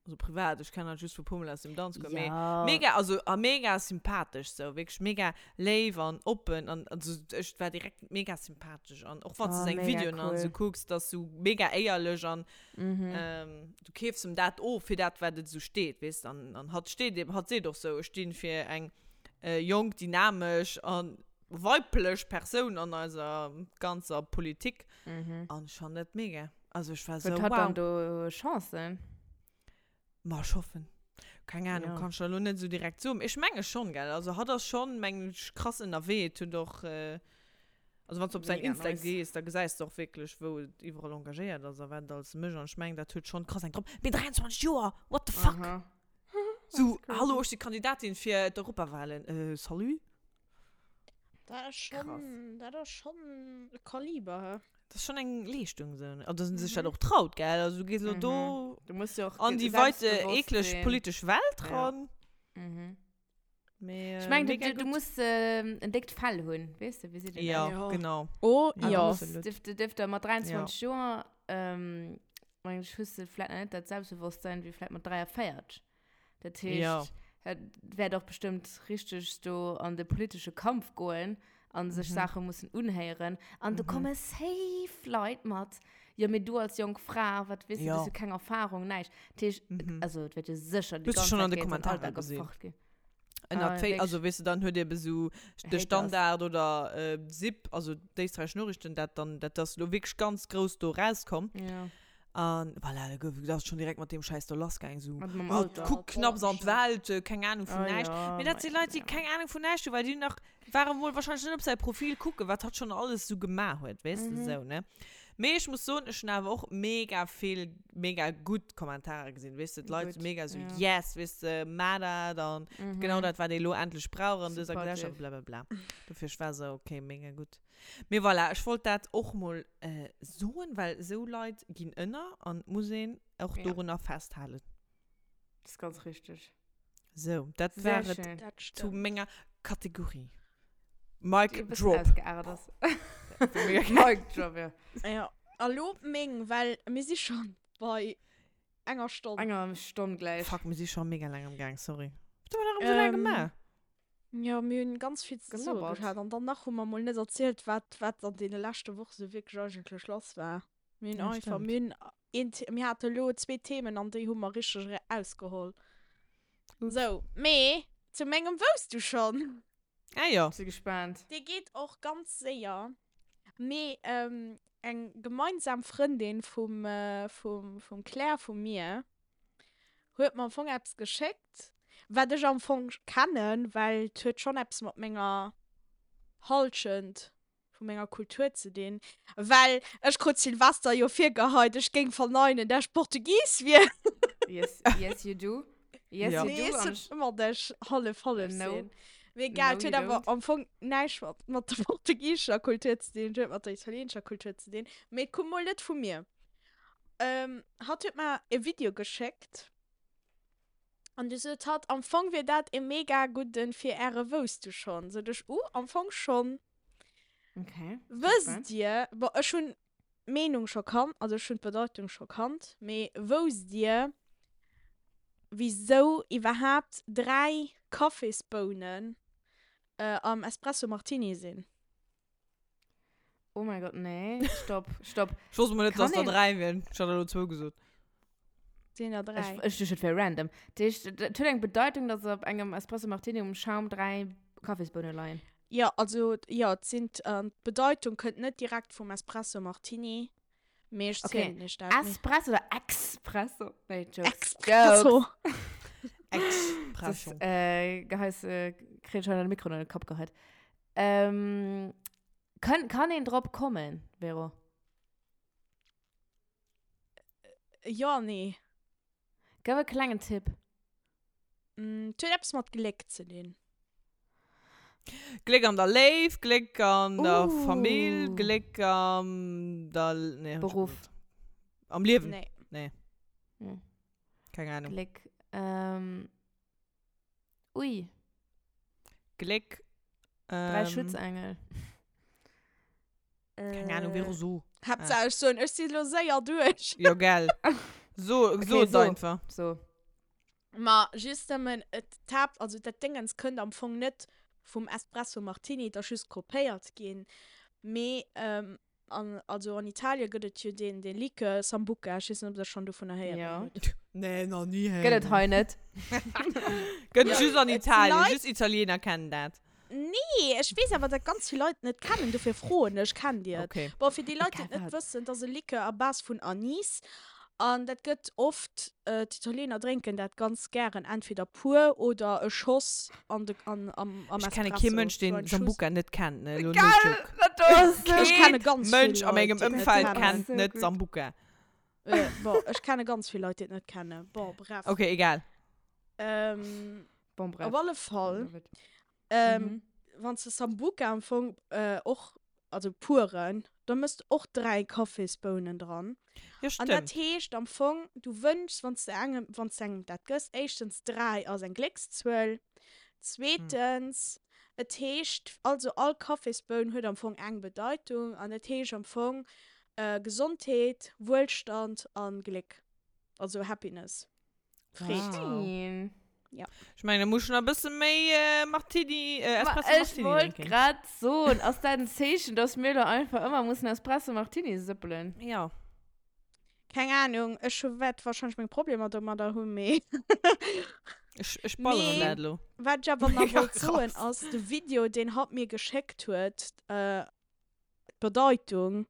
Also privat, ech kennen hatt just vu puer Mol aus dem Danzcours, mee Ja. mega, also a mega sympathesch sou, wierklech mega léif an oppen an also ech war direkt mega sympathesch an och wann s Oh, de seng mega Videoen an cool. sou kucks, dat ass sou mega éierlech an Mhm. ähm, du keefs em dat of fir dat wat et sou steet, weess de, an an hatt steet eben, hatt seet och sou, ech stinn fir eng jonk, dynamesch an weiblech Persoun an eiser ganzer Politik Mhm. an ech fannen dat mega. Also ech war sou, Huet hatt dann wow. do Chancen? Ma ech hoffen. Keng Ahnung, Ja. kann ech der elo net sou direkt soen. Ech menge schonn, gell. Also hatt ass schonn, mengen ech, krass ënnerwee. Et huet och, also wann s de op säin Mega Insta nice. gees, da gesäis de och wierklech, wou et iwwerall engagéiert ass a wat et alles mécht. An ech mengen, dat huet schonn krass eng drop. Mee 23 Joer, what the fuck? Aha. Sou, That's crazy. hallo, ech si Kandidatin fir d'Europawahlen. Äh, salut? Dat ass schon, dat ass schon e Kaliber, hä? Dat ass schon eng Leeschtung sou, ne? An dass en sech dat och traut, gell? Also du gees elo do Du muss jo och an déi weite selbstbewosst eekleg sinn. politesch Welt Ja. ran. Mhm. Mee, Ech mengen, du, mega du, du gutt. muss ähm, en déckt Fell hunn, weess de, wéi seet een Ja, dat? Ja. genau. Oh, An ja. du muss, Absolut. dürf, du dürf da mat 23 Ja. Joer, ähm, meng ech, hues du vläicht nach net dat Selbstbewusstsein wéi vläicht mat 43. Dat heescht, Ja. et wäert och bestëmmt richteg do an de politesche Kampf goen a sech Mhm. Saache mussen unhéieren. An do Mhm. komme safe Leit mat, jo, mee du als jonk Fra, wat weess du, du Ja. hues jo keng Erfahrung, näischt. Dat heescht, Mhm. also et wäert jo sécher déi Hues du ganz schon Zäit an de géint den Kommentare Alldag gesinn? gefacht ginn. Ënnert Ah, Fa- wierklech? also weess du, dann huet ebe sou de Haters. Standard oder äh, SIP, also d'Éisträichesch Noriichten, dat dann, dat ass lo wierklech ganz grouss do rauskomm. Ja. An voilà, da gouf, da ass schon direkt mat deem Schäiss do lassgaang, sou, Mat mam oh, Alter. kuck knapps an d'Welt, keng Ahnung vun Ah näischt. ja, Mee dat si ma Leit, déi ja. keng Ahnung vun näischt hunn, well déi nach, ware mol wahrscheinlech net op säi Profil kucken, wat hatt schon alles sou gemaach huet, weess de, Mhm. sou, ne. Mee ech muss soen, ech hunn awer och mega vill mega gutt Kommentare gesinn, weess de, d'Leit Gutt, mega sou, ja. yes, weess de, maach dat an genau Mhm. dat, wat ee lo endlech brauch an dëser Gesellschaft, Supportive. blablabla. Dofir, ech war sou, okay, mega gutt. Mee voilà, ech wollt dat och mol soen, well esou Leit ginn ënner an et muss een och Ja. dorunner festhalen. Das ist ganz richtig. Sou, dat Sehr war et schön. Dat zu stëmmt. menger Kategorie. Die Mic e bëssen drop. ausgeartet ass. Mega geil. Mic drop, ja. Ja, a lo meng, well mir si schonn bei enger Stonn. Enger Stonn gläich. Fuck, mir si scho mega laang am Gaang, sorry. Wat hu mer nach esou laang Ähm, gemaach? Jo, mir hunn ganz vill ze soe Gelabbert. gehat an dann nach hu mer mol net erzielt, wat, wat an deene leschte Woche sou wierklech eigentlech lass war. Mir hunn Ja, einfach, stimmt. mir hunn een, The mir hate lo zwee Themen an déi hu mer richteg erausgeholl. Ups. Sou, mee zu mengem Wousst du schonn? Ah jo. Si gespaant. Dee geet och ganz séier, mee eng gemeinsam Frëndin vum, vum, vum Claire vu mir huet mer am Fong eppes geschéckt, wat ech am Fong kennen, well et huet schonn eppes mat menger Halschent vu menger Kultur ze dinn, well ech krut Silvester jo virgeheit, ech géing verneinen, dat ech Portugis wier. Yes, yes you do. Yes Ja. you Nee, do. ech An sot ëmmer, dat ech hallef hallef No. sinn. Mee egal, No, et huet you awer don't. am Fong näischt mat, mat der portugisescher Kultur ze dinn, et huet mat der italienescher Kultur ze dinn, mee et koum mol net vu mir. Ähm, hatt huet mer e Video geschéckt an du sot hatt, am Fong wier dat e mega gudden fir äre Wousst du schonn? Sot ech, uh, am Fong schonn. Okay. Wësst dir, bon, ech hunn d'Meenung scho kannt, also ech hunn d'Bedeitung scho kannt, mee wousst dir, wisou iwwerhaapt 3 Kaffisbounen am Espresso Martini sinn? Oh mein Gott, nee. Stopp, stopp. Ech wosst mol net, dass Kann der een- 3 wieren. Ech hat elo zwou gesot. Sinn der 3. Ech, ech duecht, et wär random. Dat heescht, et huet eng Bedeitung, dass op engem Espresso Martini um Schaum 3 Kaffisbounen leien. Jo, also, jo, et sinn, an d'Bedeitung kënnt net direkt vum Espresso Martini, mee ech Okay. zielen iech dat. Mee- Espresso oder Expresso? Nee, Jokes. Expresso. Expresso. Das, äh, Geheis, äh, kritt schon den Mikro an den Kopf geheit. Ähm, kann, kann een drop kommen, Vero? Jo, nee. Gëff e klengen Tipp. Mm, et huet eppes mat Gléck ze dinn. Gléck an der Léift, Gléck an der Uh. Famill, Gléck am der, nee, hab ich Beruf. gewusst. Am Liewen. Nee. Nee. Hm. Keng Ahnung. Gléck, ähm, ui. Gléck. Drei Ähm, Schutzengel. Keng Ahnung, Vero, so. Haaptsaach ech soen, ech si lo séier duerch. Jo, gell. So, Okay, so et so. einfach. So. Ma just nëmmen, et d'Haapt, also dat Déngens kënnt am Fong net vum Espresso Martini, et ass just kopéiert ginn. Mee ähm, An also an Italien gëtt et jo deen deen Likör Sambuca, ech weess net ob der schonn dovunner héieren Ja. hutt. Nee, nach ni Gëtt héieren. et hei net. Gëtt Ja, just an et Italien, Leit- just Italiener kennen dat. Nee, ech weess awer dat ganz vill Leit et net kennen, dofir froen ech, kennt dir et? Okay. Bon, fir déi Leit déi et net Egal. wëssen, et ass e Likör à base vun Anis an dat gëtt oft, d'Italiener drénken dat ganz gären entweder pur oder e Schoss an de, an, am, am Ech kenne Espresso, kee Mënsch, so deen ein Schuss. Sambuca net kennt, ne? Elo no Geil, joke. dat do ass so Ech kenne ganz vill Mënsch a Leit, mengem déi et net Ëmfeld kennen. kennt So net gut. Sambuca. Äh, bon, ech kenne ganz vill Leit, déi et net kennen. Bon, bref. Okay, egal. Ähm, Bon, bref. op alle Fall, ähm, Mhm. wann s de Sambuca am Fong äh, och, also puren, da mëss de och 3 Kaffisbounen dran. Jo, An dat stëmmt. heescht am Fong, du wënschs, wann s de engem, wann s de engem dat gëss, éischtens 3 ass eng Gléckszuel, zweetens, et heescht, also all Kaffisboun huet am Fong eng Bedeitung an et heescht am Fong äh, Gesondheet, Wuelstand an Gléck, also Happiness. Freed. Wow. Schön. Ja. Ech mengen, da muss schon e bësse méi äh, Martini, äh, Ma Espresso ech Martini wollt drinken. grad soen, ass dat en Zeechen, dass mir lo einfach ëmmer mussen Espresso Martini sëppelen? Ja. Keng Ahnung, ech hu wäert wahrscheinlech meng Problemer domadder hunn, mee Ech, ech balleren Mee dat lo. wat ech awer nach Mega wollt soen krass. ass, de Video, deen hatt mir geschéckt huet, äh, d'Bedeitung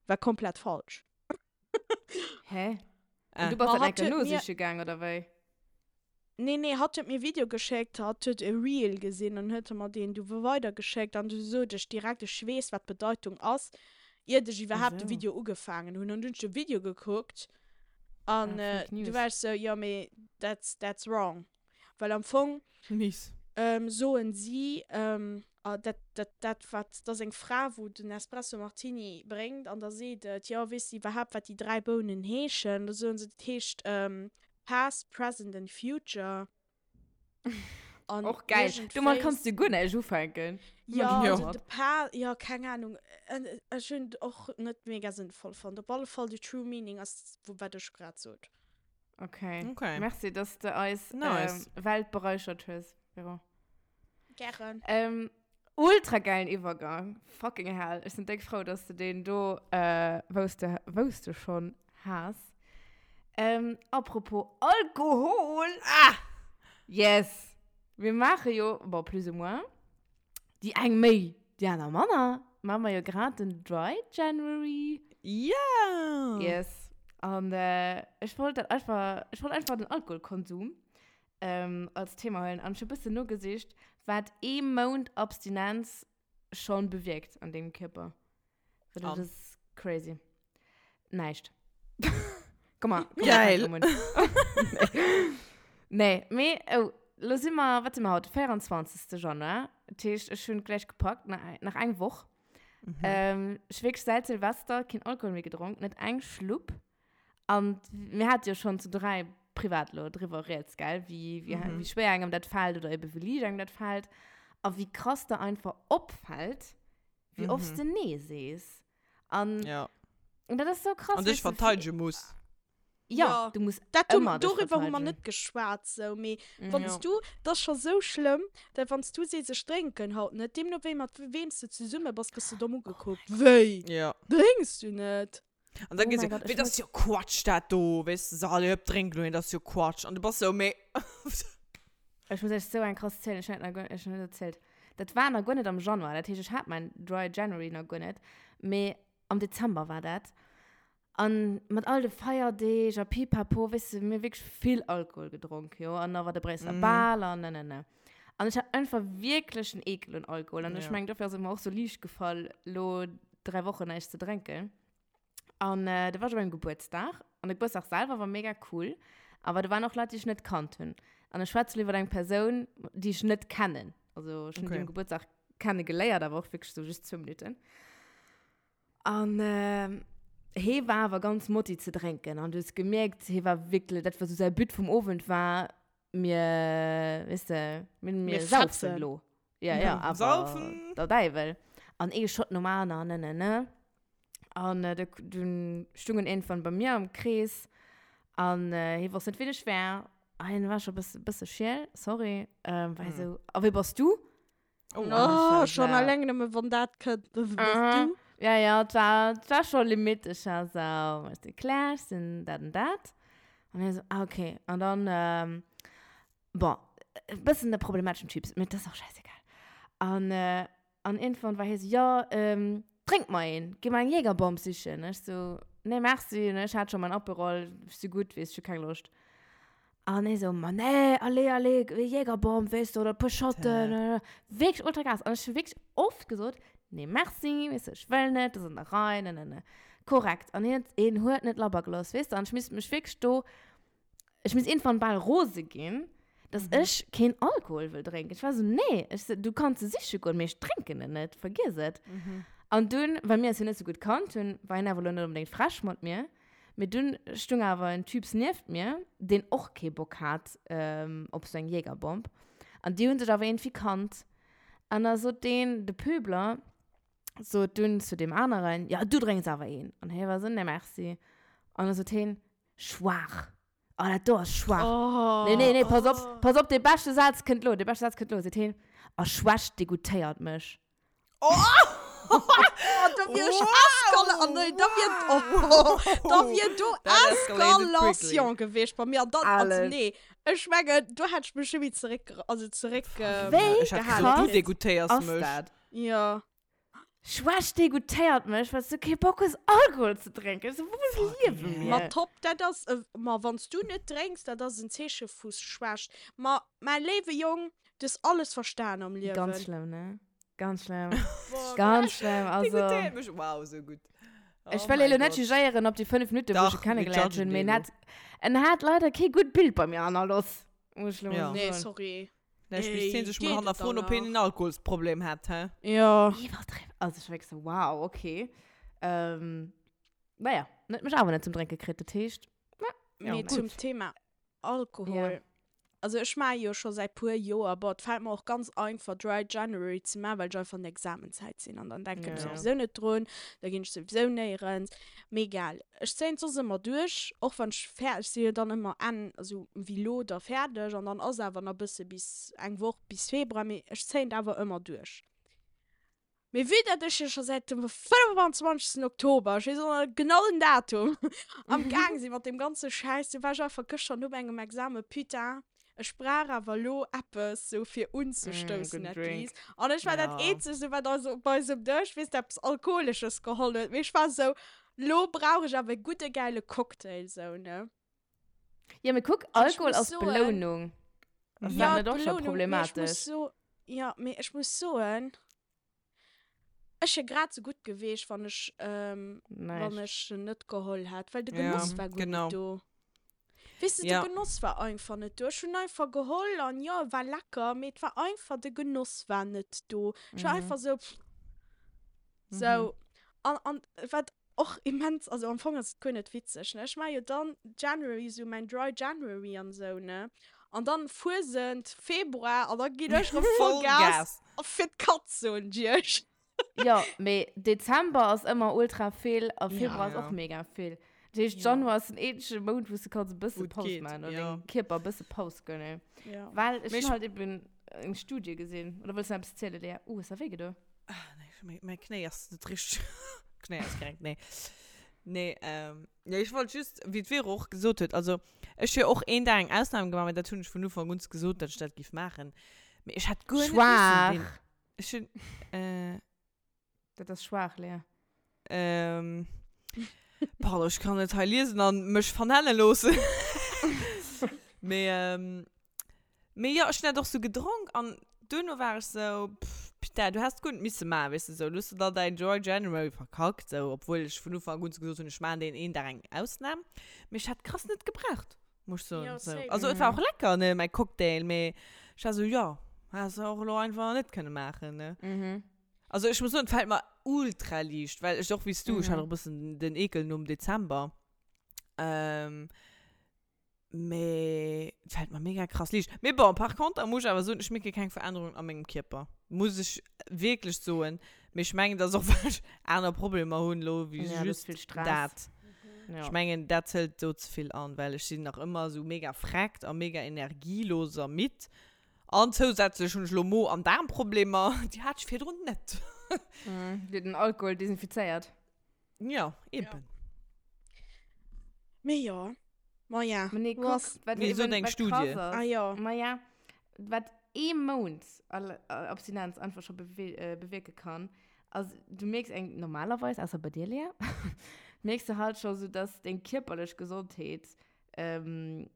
war komplett falsch. Hä? Ah. Und du bass Ma dat hatt enker huet mir- nosiche gaang, oder wéi? Nee, nee, hatt huet mir e Video geschéckt, hatt huet e Reel gesinn an huet mer deen du weidergeschéckt an du sot ech direkt, ech weess wat d'Bedeitung ass, iert ech iwwerhaapt de Esou. Video ugefaangen hunn. An du hunn ech de Video gekuckt an Ah, Fake du News. war ech sou, jo mee that's, that's wrong. Well am Fong Mies. soen si, dat, dat, dat wat, dat ass eng Fra wou den Espresso Martini bréngt an da seet et, jo weess de iwwerhaapt wat déi 3 Bounen heeschen? Da soen se, dat heescht Past, Present and Future. An Och geil. Domat kanns du guer näischt ufänken. Ja, Jo. also de Pa, ja, keng Ahnung. Ech hunn et och net mega sënnvoll fonnt. Op alle Fall, the true meaning ass, wat ech grad sot. Okay. Okay. Merci, dass de eis Nice. ähm, Welt bereichert hues, Vero. Gären. Ähm, ultra geilen Iwwergang. Fucking hell. Ech sinn déck frou, dass de deen do, äh, wous de, wous de schon has. Ähm, apropos Alkohol. Ah! Yes! Mir maache jo, bon, plus ou moins, déi eng méi, déi aner manner, maache mer jo grad den Dry January. Ja! Yes. An äh, ech wollt dat einfach, ech wollt einfach den Alkoholkonsum ähm, als Thema huelen. An ech hu bëssen nogesicht, wat ee Mount Abstinenz schon bewierkt an dengem Kierper. Well dat An? ass crazy. Näischt. Komm mal. Komm Geil. Mal, nee, mee, oh, lo si mer, wat si mer haut? 24. Januar. Dat heescht, ech hunn gläich gepackt, nach, nach eng Woch. Mhm. Ähm, ech wierklech säit Silvester keen Alkohol méi gedronk, net eng Schlupp. An mir hate jo schonn zu 3 privat lo driwwer rieds, gell, wéi, wéi, Mhm. wéi schwéier engem dat fält oder ebe wéi liicht engem dat fält. A wéi krass der einfach opfält, wéi oft Mhm. de Nee sees. An, Ja. und dat ass so krass. An dich weess du, verteidigen muss. Ja, Ja. du musst Dat hu, ëmmer dech doriwwer hu mer verteidigen. net geschwat, sou, mee Mhm. wann s Ja. du, dat ass scho sou schlëmm, dat wann s du sees, ech drénken haut net, deemno wéi mat weem s du zesumme bass, gëss du domm ugekuckt. Wéi? Ja. Drénks du net? An dann Oh geet mein se, Gott, wéi, ech das ist jo Quatsch, dat do, weess du, so, allez, hop, drink lo een, das ist jo Quatsch. An du bass sou, mee. Ech muss iech sou eng krass zielen, ech hun dat nach guer, ech hun net erzielt. Dat war nach guer net am Januar, dat heescht, ech hat mein Dry January nach guer net, mee am Dezember war dat. An mat all de Feierdeeg a pipapo, weess de, mir hu wierklech vill Alkohol gedronk, jo, an da war de Bréisseler Mhm. Bal an ne, ne, ne. An ech hat einfach wierklech en Ekel un Alkohol an ech Ja. mengen, dofir ass et mer och sou liicht gefall, lo 3 Wochen näischt ze drénken. An äh, da war ech op engem Gebuertsdag. An de Gebuertsdag selwer war mega cool. Awer do waren och Leit, déi ech net kannt hunn. An ech schwätze lo iwwer eng Persoun, déi ech net kennen. Also ech hunn Okay. déi um Gebuertsdag kenne geléiert, awer och wierklech sou just zwou Minutten. An äh, hee war awer ganz motti ze drénken. An du hues gemierkt, hee war wierklech, dat war sou säi But vum Owend war, mir, weess de, mir, mir, Mir saufen fetzen. lo. Ja, ja, awer Saufen. der Däiwel. An ee Shot nom aneren, ne, ne, ne. An äh, dunn stungen irgendwann bei mir am Krees an äh, hie wosst net, wien ech wär. A hien war scho bësse, bësse schiel, sorry. Ähm, war Hm. sou, a wie bass du? Oh, An ech war Oh, schon sou, alleng nëmme wann dat kënnt, wie bass Aha. du? Ja, ja, et war, et war scho Limit. Ech war sou, ech sinn Claire, ech sinn dat an dat. An hie sou, ah, okay. An dann, ähm, bon, e bëssen e problemateschen Typ, mee dat ass och schäissegal. An, äh, An irgendwann war hie so, ja, ähm, drénk mer een, gi mer eng Jägerbomb sichen. Ech so, nee, merci, ne, ech hat schon mein Aperol, ech si gutt, weess, ech hu keng Loscht. An hie so, ma nee, allez, allez, Jägerbomb, weess du, oder e puer Shotten, äh, wierklech ultra krass. An ech hu wierklech oft gesot, nee, merci, weess du, ech wëll net, dat ass an der Rei, ne, ne, ne. Korrekt. An hien, hien huet net labber gelooss, weess du, an ech misst mech wierklech do ech misst irgendwann bal rose ginn, dass Mhm. ech keen Alkohol wëll drénken. Ech war so, nee, ech so, du kanns se siche goen, mee ech drénken en net, vergiess et. Mhm. An dunn, well mir eis jo net sou gutt kannt hunn, war hien awer lo net onbedéngt frech mat mir, mee dunn stung awer en Typs nieft mir, deen och kee Bock hat ähm, op sou eng Jägerbomb. An déi hunn sech awer iergendwéi kannt. An da sot deen, de Pöbler, sot dunn zu deem aneren, ja, du drénks awer een. An hie war sou, nee, merci. An da sot hien, Schwaach. Oh, dat do ass schwaach. Oh. Nee, nee, nee, pass op, pass op, dee beschte Saz kënnt lo, dee beschte Saz kënnt lo, seet hien, a Schwächt degoûtéiert mech. Oh! Oh, da wier ech eskala-, oh nee, da wier, oh, da wier do That escalated Eskalation gewiescht bei mir. An dann, also Alles. nee, ech mengen, do hätt ech mech schon méi zeréck, also zeréck, Wéi Ech hätt gehalen gesot, du krass degoûtéiers ass mech. dat? Ja. Schwächt degoutéiert mech, well s du kee Bock hues Alkohol ze drénken. Ech so, wou liewe mir? Ma top, dat ass e, ma wann s du net drénks, dat ass en Zeeche vu Schwächt. Ma mäi léiwe Jong, du hues alles verstan am Liewen. Ganz schlëmm, ne? Ganz schlëmm. Ganz schlëmm, also. Degoutéiert mech, wow, sou gutt. Ech wëll elo net jugéieren op déi 5 Minutten, wou ech e kennegeléiert hunn, mee en hat, en hat leider kee gutt Bild bei mir hannerloss, muss ech elo mol soen. Nee, sorry. Vläicht misst hien sech mol hannerfroen, ob hien en Alkoholsproblem hätt, hä? Jo. Iwwerdriwwen. Also ech war wierklech sou, wow, okay. Ähm, naja, en huet mech awer net zum Drénke kritt, dat heescht, ja, Mee zum Thema Alkohol. Ja. Also ech maache jo scho säit puer Joer, bon, et fält mer och ganz einfach Dry January ze maachen, well ech einfach an der Examenzäit sinn an dann denken ech souwisou net drun, da ginn ech souwisou néierens. Mee egal, ech zéien et soss ëmmer duerch, och wann ech fäerdeg, ech si jo dann ëmmer Enn, also wéi lo da fäerdeg an dann ass awer nach bësse bis eng Woch bis Februar, mee ech zéien et awer ëmmer duerch. Mee vue dat ech jo scho säit dem 25. Oktober, ech weess och nach genau den Datum, am Gaang si mat deem ganze Schäiss, du war ech einfach gëschter no mengem Examen, putain, ech brauch awer elo eppes sou fir unzestoussen at least. An ech war dat eenzegt sou wat eis op eisem Dësch, weess de, eppes Alkoholesches geholl huet. Mee ech war sou, lo brauch ech awer e gudde gäile Cocktail sou, ne. Ja, mee kuck, Alkohol ass Belounung. Ass dat net och scho problematesch? Jo, mee ech muss soen, Ech wier grad sou gutt geweecht, wann ech, wann ech en net geholl hätt, well de Genoss war guer net do. Weess de, de Genoss war einfach net do. Ech hunn einfach geholl an jo, e war lecker, mee et war einfach, de Genoss war net do. Ech war einfach sou, pff, sou. An, an wat och immens, also am Fong ass et guer net witzeg, ne, ech maache jo dann January sou mäin Dry January an sou, ne, an dann Fuesent, Februar, an da ginn ech rëm Vollgas fir d'Katz, soen ech iech. Jo, mee Dezember ass ëmmer ultra vill a Februar ass och mega vill. Dat heescht, Januar ass den eenzege Mount, wou s de kanns e bësse Paus maachen oder dengem Kierper e bësse Paus gënnen. Well ech hunn halt eben eng Studie gesinn. Oder wëlls de nach eppes zielen, Léa? Uh, hues de wéi gedo? Ah, nee, mäi Knéi ass net richteg. Knéi ass krank, nee. Nee, ähm, ja, ech wollt just, wéi d'Vero och gesot huet, also ech hu jo och een Dag eng Ausnam gemaach, mä dat hunn ech vun Ufank un gesot, datt ech dat giff maachen. Mee ech hätt guer net missen deen. Schwaach! Ech hunn, äh. Dat ass schwaach, Léa. Ähm, pardon, ech kann net hei liesen an mech vernenne loossen. Mee, ähm, mee jo, ech hunn dat och sou gedronk an duerno war ech sou, pff, putain, du häss guer net misse maachen, weess de, sou, du hues da däin Dry January verkackt, sou, obwuel ech vun Ufank un gesot hunn, ech maachen deen een Dag eng Ausnam. Mee ech hätt krass net gebraucht, muss ech soen, Jo, sou. same. Also et war och lecker, ne, mäi Cocktail, mee ech war sou, jo, häss de och elo einfach net kënne maachen, ne. Mhm. Also ech muss soen, et fällt mer ultra liicht, well ech och wéi s du, ech hat och e bëssen den Ekel nom Dezember. Ähm, mee et fällt mer mega krass liicht. Mee bon, par contre muss ech awer soen, ech mierke keng Verännerung a mengem Kierper. Muss ech wierklech soen. Mee ech mengen, dat ass och well ech aner Problemer hunn elo wéi Ja, du hues just vill Stress. dat. Ja. Ech mengen, dat zëlt do ze vill an, well ech sinn nach ëmmer esou mega vreckt a mega energielos a midd. An zousätzlech hunn ech elo Mo an Daarmproblemer, déi hat ech virdrun net. Dir den Alkohol desinfizéiert. Ja, eben. Mee jo, ma ja. Ma nee, kuck, wat Mee sot eben, eng wat Studie. krass ass. Ah jo. Ma ja, wat ee Mount Abstinenz einfach scho bewierke kann, ass, du mierks eng, normalerweis, ausser bei dir, Lea, mierks du halt scho sou, dass deng kierperlech Gesondheet erëm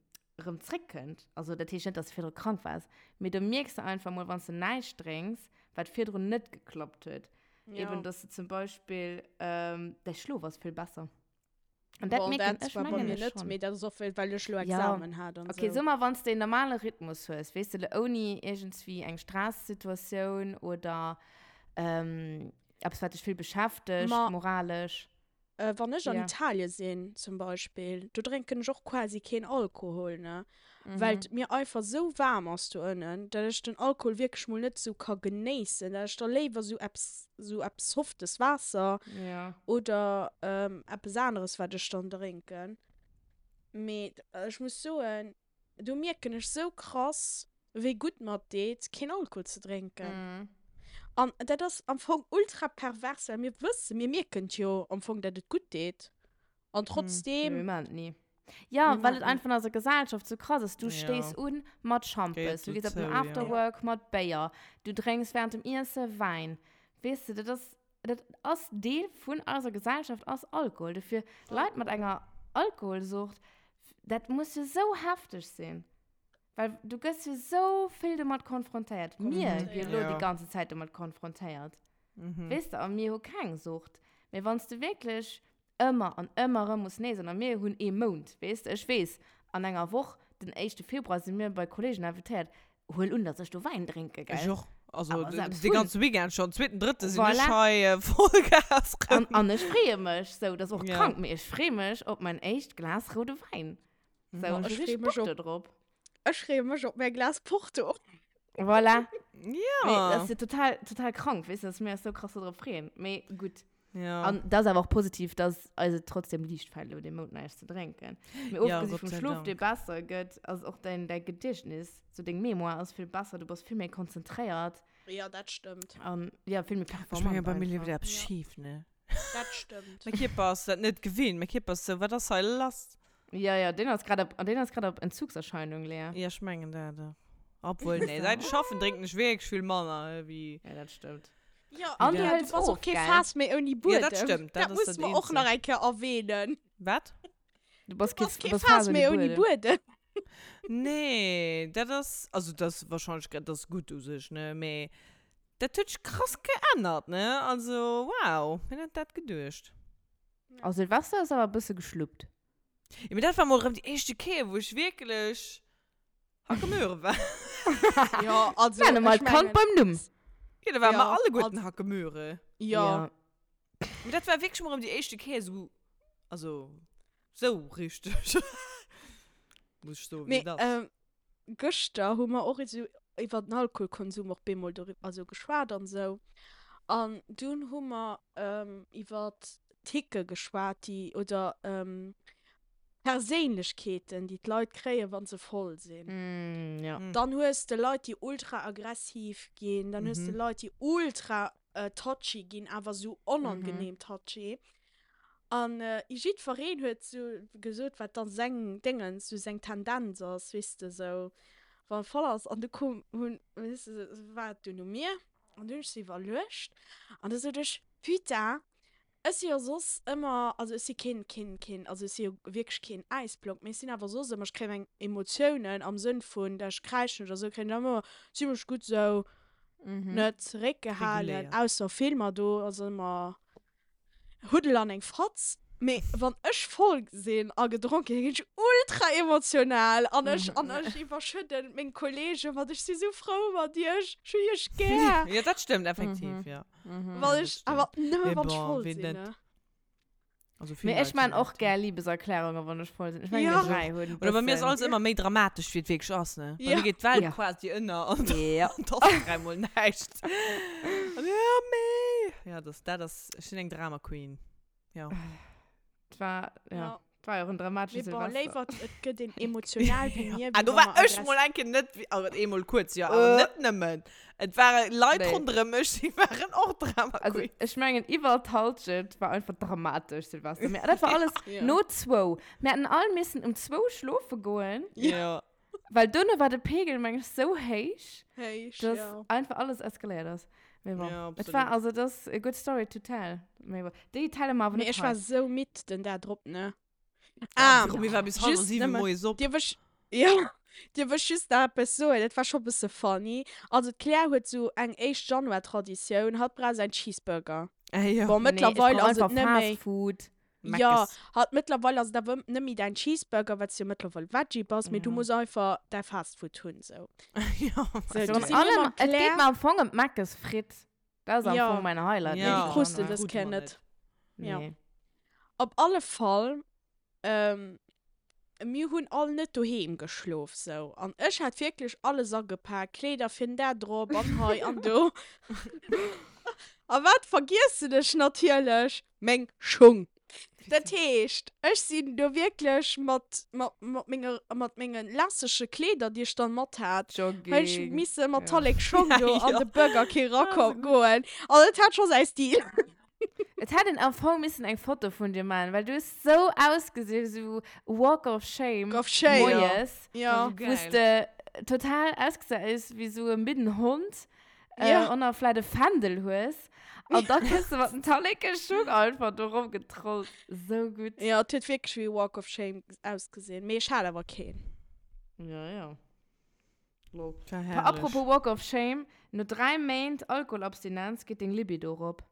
zréckkënnt. Also dat heescht net, dass du virdru krank waars, mee do mierks de einfach mol, wann s de näischt drénks, wat virdrun net geklappt huet. Ja. Eben, dass du zum Beispill, ähm, däi Schlof ass vill besser. An dat Bon, mierken dat ech, war bei mengen mir ech net, schonn. mee dat ass och, well well ech lo Ja. Examen hat an Okay, sou. so mal, wann s de en normale Rhythmus hues, weess de, lo ouni iergendswéi eng Stressituatioun oder ähm, eppes, wat dech vill beschäftegt, Ma moralesch. Wann ech an Ja. Italien sinn zum Beispill, do drénken ech och quasi keen Alkohol, ne? Well et mir einfach sou waarm ass do ënnen, dat ech den Alkohol wierklech mol net sou ka genéissen, dat ech da léiwer sou eppes, sou eppes softes Waasser Ja. oder eppes aneres wat ech dann drénken. Mee ech muss soen, Do mierken ech sou krass, wéi gutt mer et deet, keen Alkohol ze drénken. An dat ass am Fong ultra pervers, well mir wëssen, mir mierken et jo am Fong, dat et gutt deet. An trotzdeem. Mee mir maachen et ni. Jo, Mir well et maachen et. einfach an eiser Gesellschaft sou krass ass. Du stéiss un mat Schampes, du gees op den Afterwork mat Béier, du drénks wärend dem Iesse Wäin. Weess de, dat ass. Dat ass Deel vun eiser Gesellschaft, ass Alkohol. Dofir Leit mat enger Alkoholsucht, dat muss jo sou hefteg sinn. Well du gëss jo sou vill domat konfrontéiert. Mir gi jo elo déi ganze Zäit domat konfrontéiert. Weess de, a mir hu keng Sucht. Mee wann s de wierklech ëmmer an ëmmer erëm muss Nee soen, a mir hunn ee Mount, weess de, ech weess, an enger Woch, den éischte Februar, si mir bei Kolleegen invitéiert, huel un, dass ech do Wäin drénke, gell? Ech och. Also Awer selbst de hunn. ganze Weekend schonn, zweeten, drëtte sinn ech Voilà. hei Vollgas An, rëm. an ech freeë mech, sou, dat ass och Ja. krank, mee ech freeë mech op mäin éischt Glas roude Wäin. Sou, Ma ech ech hu freeë richteg mech Bock op do drop. Ech freeë mech op mäi Glas Porto. Voilà. Ja. Mee dat ass jo total, total krank, weess de, dass mir eis sou krass do drop freeën. Mee gutt. Ja. An dat ass awer och positiv, dass eis et trotzdem liicht fält, elo dee Mount näischt ze drénken. Mee Ja, ofgesi Gott vum sei Schlof, Dank. dee besser gëtt, ass och däin, däi Gediechtnis, sou deng Mémoire ass vill besser, du bass vill méi konzentréiert. Ja, dat stëmmt. An ja, vill méi Ech menge performant bei mir leeft einfach. eppes Ja. schif, ne? Dat stëmmt. Mäi Kierper ass dat net gewinnt. Mäi Kierper ass sou, wat ass hei lass? Ja, ja, deen ass grad op, deen ass grad op Entzugserscheinung, Lea. Ja, ech mengen dat och. Obwuel, nee, seit ech schaffen, drénken ech wierklech vill manner wéi. Ja, dat stëmmt. Ja, An du ja, hëls du bass of, och kee gell? Faass méi ouni Ja, Buedem. dat stëmmt, dat Dat ass muss dat mer och nach Eenzegt. eng Kéier erwähnen. Wat? Du bass Du bass kee kee Faass méi ouni Buedem. Nee, dat ass, also dat ass wahrscheinlech, dat ass gutt u sech, ne, mee dat huet sech krass geännert, ne, also wow, wien hätt dat geduecht? A Silvester ass awer e bësse geschluppt. Jo, mee dat war mol erëm déi éischte Kéier, wou ech wierklech Hackemöhre war. Jo, also Nenne mer ech d'Kand mengen, beim Numm. Jo, da ware mer Ja, alleguerten also- Hackemöhre. Jo. Mee dat war wierklech mol erëm déi éischte Kéier esou, also sou richteg. Muss ech soen, wéi Mee et ass. ähm, gëschter hu mer och esou iwwer den Alkoholkonsum och bemol doriwwer, also geschwat an esou. An dunn hu mer ähm, iwwer Ticke geschwat, déi, oder ähm, Perséinlechkeeten, déi d'Leit kréien, wa se voll sinn. Mm, ja. Dann hues de Leit, déi ultra aggressiv ginn, dann hues de Leit, déi ultra touchy ginn, awer esou onangenehm touchy. An jiddwereen huet esou gesot, wat dann seng Déngens, esou seng Tendenz ass, weess de, esou wann e voll ass. An du koum, hunn, weess de, war et dunn u mir an du hunn ech sou iwwerluecht an du sot ech, Putain, Ech si jo soss ëmmer, also ech si keen, keen, keen, also ech si jo wierklech keen Äisblock, mee ech sinn awer soss ëmmer, ech kréien meng Emotiounen am Sënn vun, dat ech kräischen oder sou, kréien ech ëmmer zimlech gutt sou net zeréckgehalen, Reguléiert. ausser Filmer, do ass ëmmer Huddel an eng Fatz. Mee wann ech voll sinn a gedronken hunn, ginn ech ultra emotional an ech, an ech iwwerschëdden meng Kollegen mat, ech si sou frou mat iech, ech hunn iech gär. Jo, dat stëmmt effektiv, jo. Mhm. Well ech, awer nëmme Mee wann ech bon, voll wien sinn, net? ne? Also vill Mee ech Leit maan sinn och dat, gär Liebeserklärungen, wann ech voll sinn. Ech mengen, Ja. mir 3 hunn Oder bei mir ass bëssen. alles ëmmer méi dramatesch, wéi et wierklech ass, ne? Bei Ja. mir geet d'Welt Ja. quasi ënner an Ja. dann ass dräimol näischt. An ja, mee. Ja, das, dat ass, ech sinn eng Drama Queen. Ja. Et war, ja. Ja. Et war jo och en dramatesche Mee bon, Silvester. léiwer et gëtt een emotional wéi mir, Ah, wéi do wa war mer ech mol eng Kéier net, also eemol kuerz, jo, awer net nëmmen. Et ware Leit Nee. ronderëm mech, déi waren och Drama Also, Queens. ech mengen, iwwer d'Halschent war einfach dramatesch, Silvester. Mee dat war alles Ja. no zwou. Mir hätten all missen um zwou schlofe goen. Ja. Well duerno war de Pegel, meng ech, sou héich, Héich, dass ja. einfach alles eskaléiert ass. Mee bon, Ja, et war absolut. also, dat ass a good story to tell. Mee bon, déi telle mer awer Mee net ech war hei. sou midd den Dag drop, ne? Ja, Ah, Romy war bis halwer just 7 nëmme, moies op. dierf ech, ja, dierf ech just nach eppes soen? Dat war scho bësse funny. Also d'Claire huet sou eng éischt Januar-Traditioun, hatt brauch säin Cheeseburger. Ah, ja. Bon, Nee, ech mëttlerweil brauch ass et einfach net méi. Fast Food. Ja, Meckes. hatt mëttlerweil ass et awer net méi däin Cheeseburger, well s du jo mëttlerweil Veggie bass, mee du Ja. muss einfach däi Fast Food hunn, sou. Ja. Sou, Virun du si mir allem, mam et geet Claire. mer am Fong ëm d'Meckes Fritt. Dat ass am Ja. Fong mäin Highlight. Nee, Ja. déi krus de Januar. dës Krute Kéier mer net. Ja. Nee. Op alle Fall, ähm, mir hunn all net doheem geschlof, sou. An ech hat wierklech alles agepak, Kleeder fir den Dag drop an hei an do. A wat vergiessen ech natierlech? Meng Schung. Dat heescht, ech sinn do wierklech mat, mat, mat menge, mat menge lässege Kleeder, déi ech dann mat hat, hunn ech Jogging. misse mat Ja. Tallek Schong do an Ja. de Burger King Ah, erako so gutt. goen. An et hat scho säi Stil. Et hätt een am Fong missen eng Foto vun dir man, well du hues sou ausgesinn, sou Walk of Shame Walk of Shame. moies, Ja. wou s de total ausgesinn hues wéi sou e midden Hond. Äh, Ja. Und dann vielleicht e Fändel hues. An da kënns du mat den Talleke-Schung einfach do rumgetrollt. So gutt. Ja, et huet wierklech wéi Walk of Shame ausgesinn. Mee ech hat awer keen. Ja, ja. Lol. War herrlech. Apropos Walk of Shame, no 3 Méint Alkoholabstinenz geet deng Libido rop.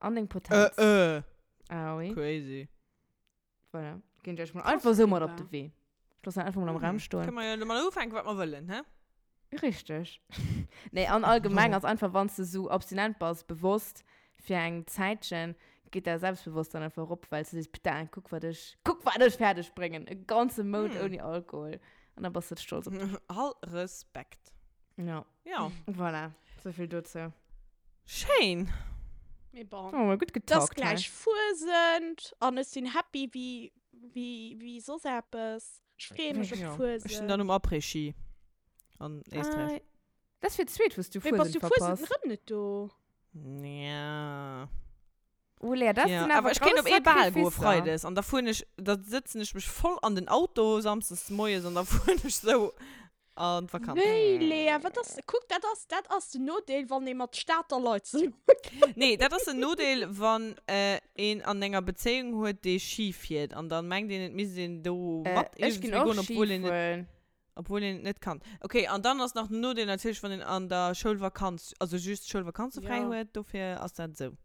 An deng Potenz. Äh, äh. Ah oui. Crazy. Voilà. Ginn ech euch mal Krass, einfach so mat op Eva. de Wee. Ech loossen einfach mal am Raum stoen. Kënne mer jo domat ufänken, wat mer wëllen, hä? Richteg. Nee, an allgemeng ass einfach, wann s de sou abstinent bass, bewosst fir eng Zäitchen, geet däi Selbstbewosstsein einfach erop, well s de sees, Putain, kuck wat ech, kuck wat ech fäerdeg bréngen, e ganze Mount Hm. ouni Alkohol. An da bass de stolz op dech. All Respekt. Ja. Ja. Voilà, souvill dozou. Schéin. Mee bon. Oh, mol gutt Et ass getalkt hei. gläich Fuesent an ech sinn happy wéi, wéi, wéi soss eppes. Ech freeë mech op Ja. d'Fuesent. Ech sinn dann um Après-Ski an Éisträich. Ah, dat ass fir d'zweet, wou s du Mee bass Fuesent du Fuesent verpasst. erëm net do? Ja. Oh Lea, dat Ja, sinn awer awer ech kéint grouss op ee Bal goe Sacrificer. Freides an da fueren ech, da sëtzen ech mech voll an den Auto samsdes moies an da fueren ech sou an d'Vakanz. Wéi, Lea, wat ass, kuck, dat ass, dat ass den Nodeel, wann ee mat Stater Leit zesummekennt. Nee, dat ass den Nodeel, wann een an enger Bezéiung huet, dee Ski fiert an dann mengt een, et misst een do mat Ech ginn iergendwéi och goen, Ski obwuel een et, fueren. obwuel een et net kann. Okay, an dann ass nach den Nodeel natierlech, wann een an der Schoulvakanz, also just d'Schoulvakanze fräi Ja. huet, dofir ass dat esou.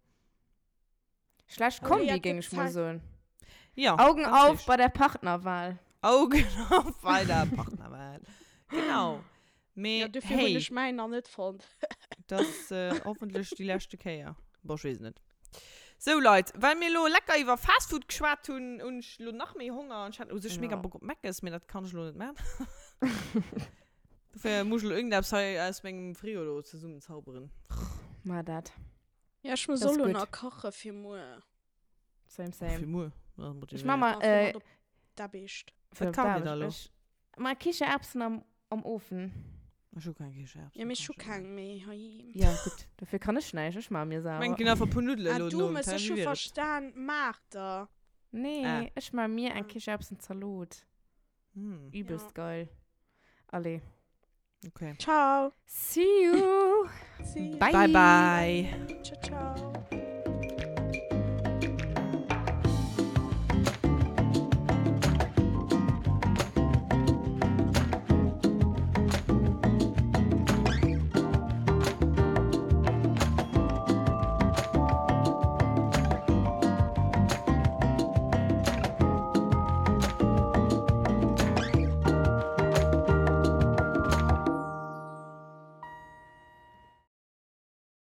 Schlecht Oh, Kombi, Lea, géing gëtt ech mol Zäit. soen. Ja, Augen ganz auf richtig. bei der Partnerwahl. Augen auf bei der Partnerwahl. Genau. Mee Ja, dofir hunn hey, ech mäin nach net fonnt. dat ass äh, hoffentlech déi leschte Kéier. Bon, ech weess et net. Sou Leit, well mir elo lecker iwwer Fastfood geschwat hunn, hunn ech elo nach méi Honger an ech hat u sech mega Ja. Bock op Meckes, mee dat kann ech elo net man. Dofir muss ech elo irgendeppes hei aus mengem Frigo do zesummenzauberen. Mar dat. Ja, ech muss Das och ist elo gut. nach kache fir muer. Same, Fir same. muer. Ech mach mal, Ah, fir äh, mat op d'Aarbecht. fir Wat op kacht dir da d'Aarbecht. elo? Ech mar Kichererbsen am, am Ofen. Ech hu keng Kichererbsen. Ja, mee ech hu keng méi heiheem. Ja, gutt. Dofir kann ech näischt. Ech maache mir Ech mengen, selwer. ginn einfach e puer Nuddelen Ah, elo du nom mëss, Teil, ech wéi hu wier et? verstan, Maarter. Nee, Ah. ech maache mir eng Ah. Kichererbsenzalot. Hm, Übelst Ja. geil. Allez. okay. Ciao. See you. See you. Bye. Bye, bye. Ciao, ciao.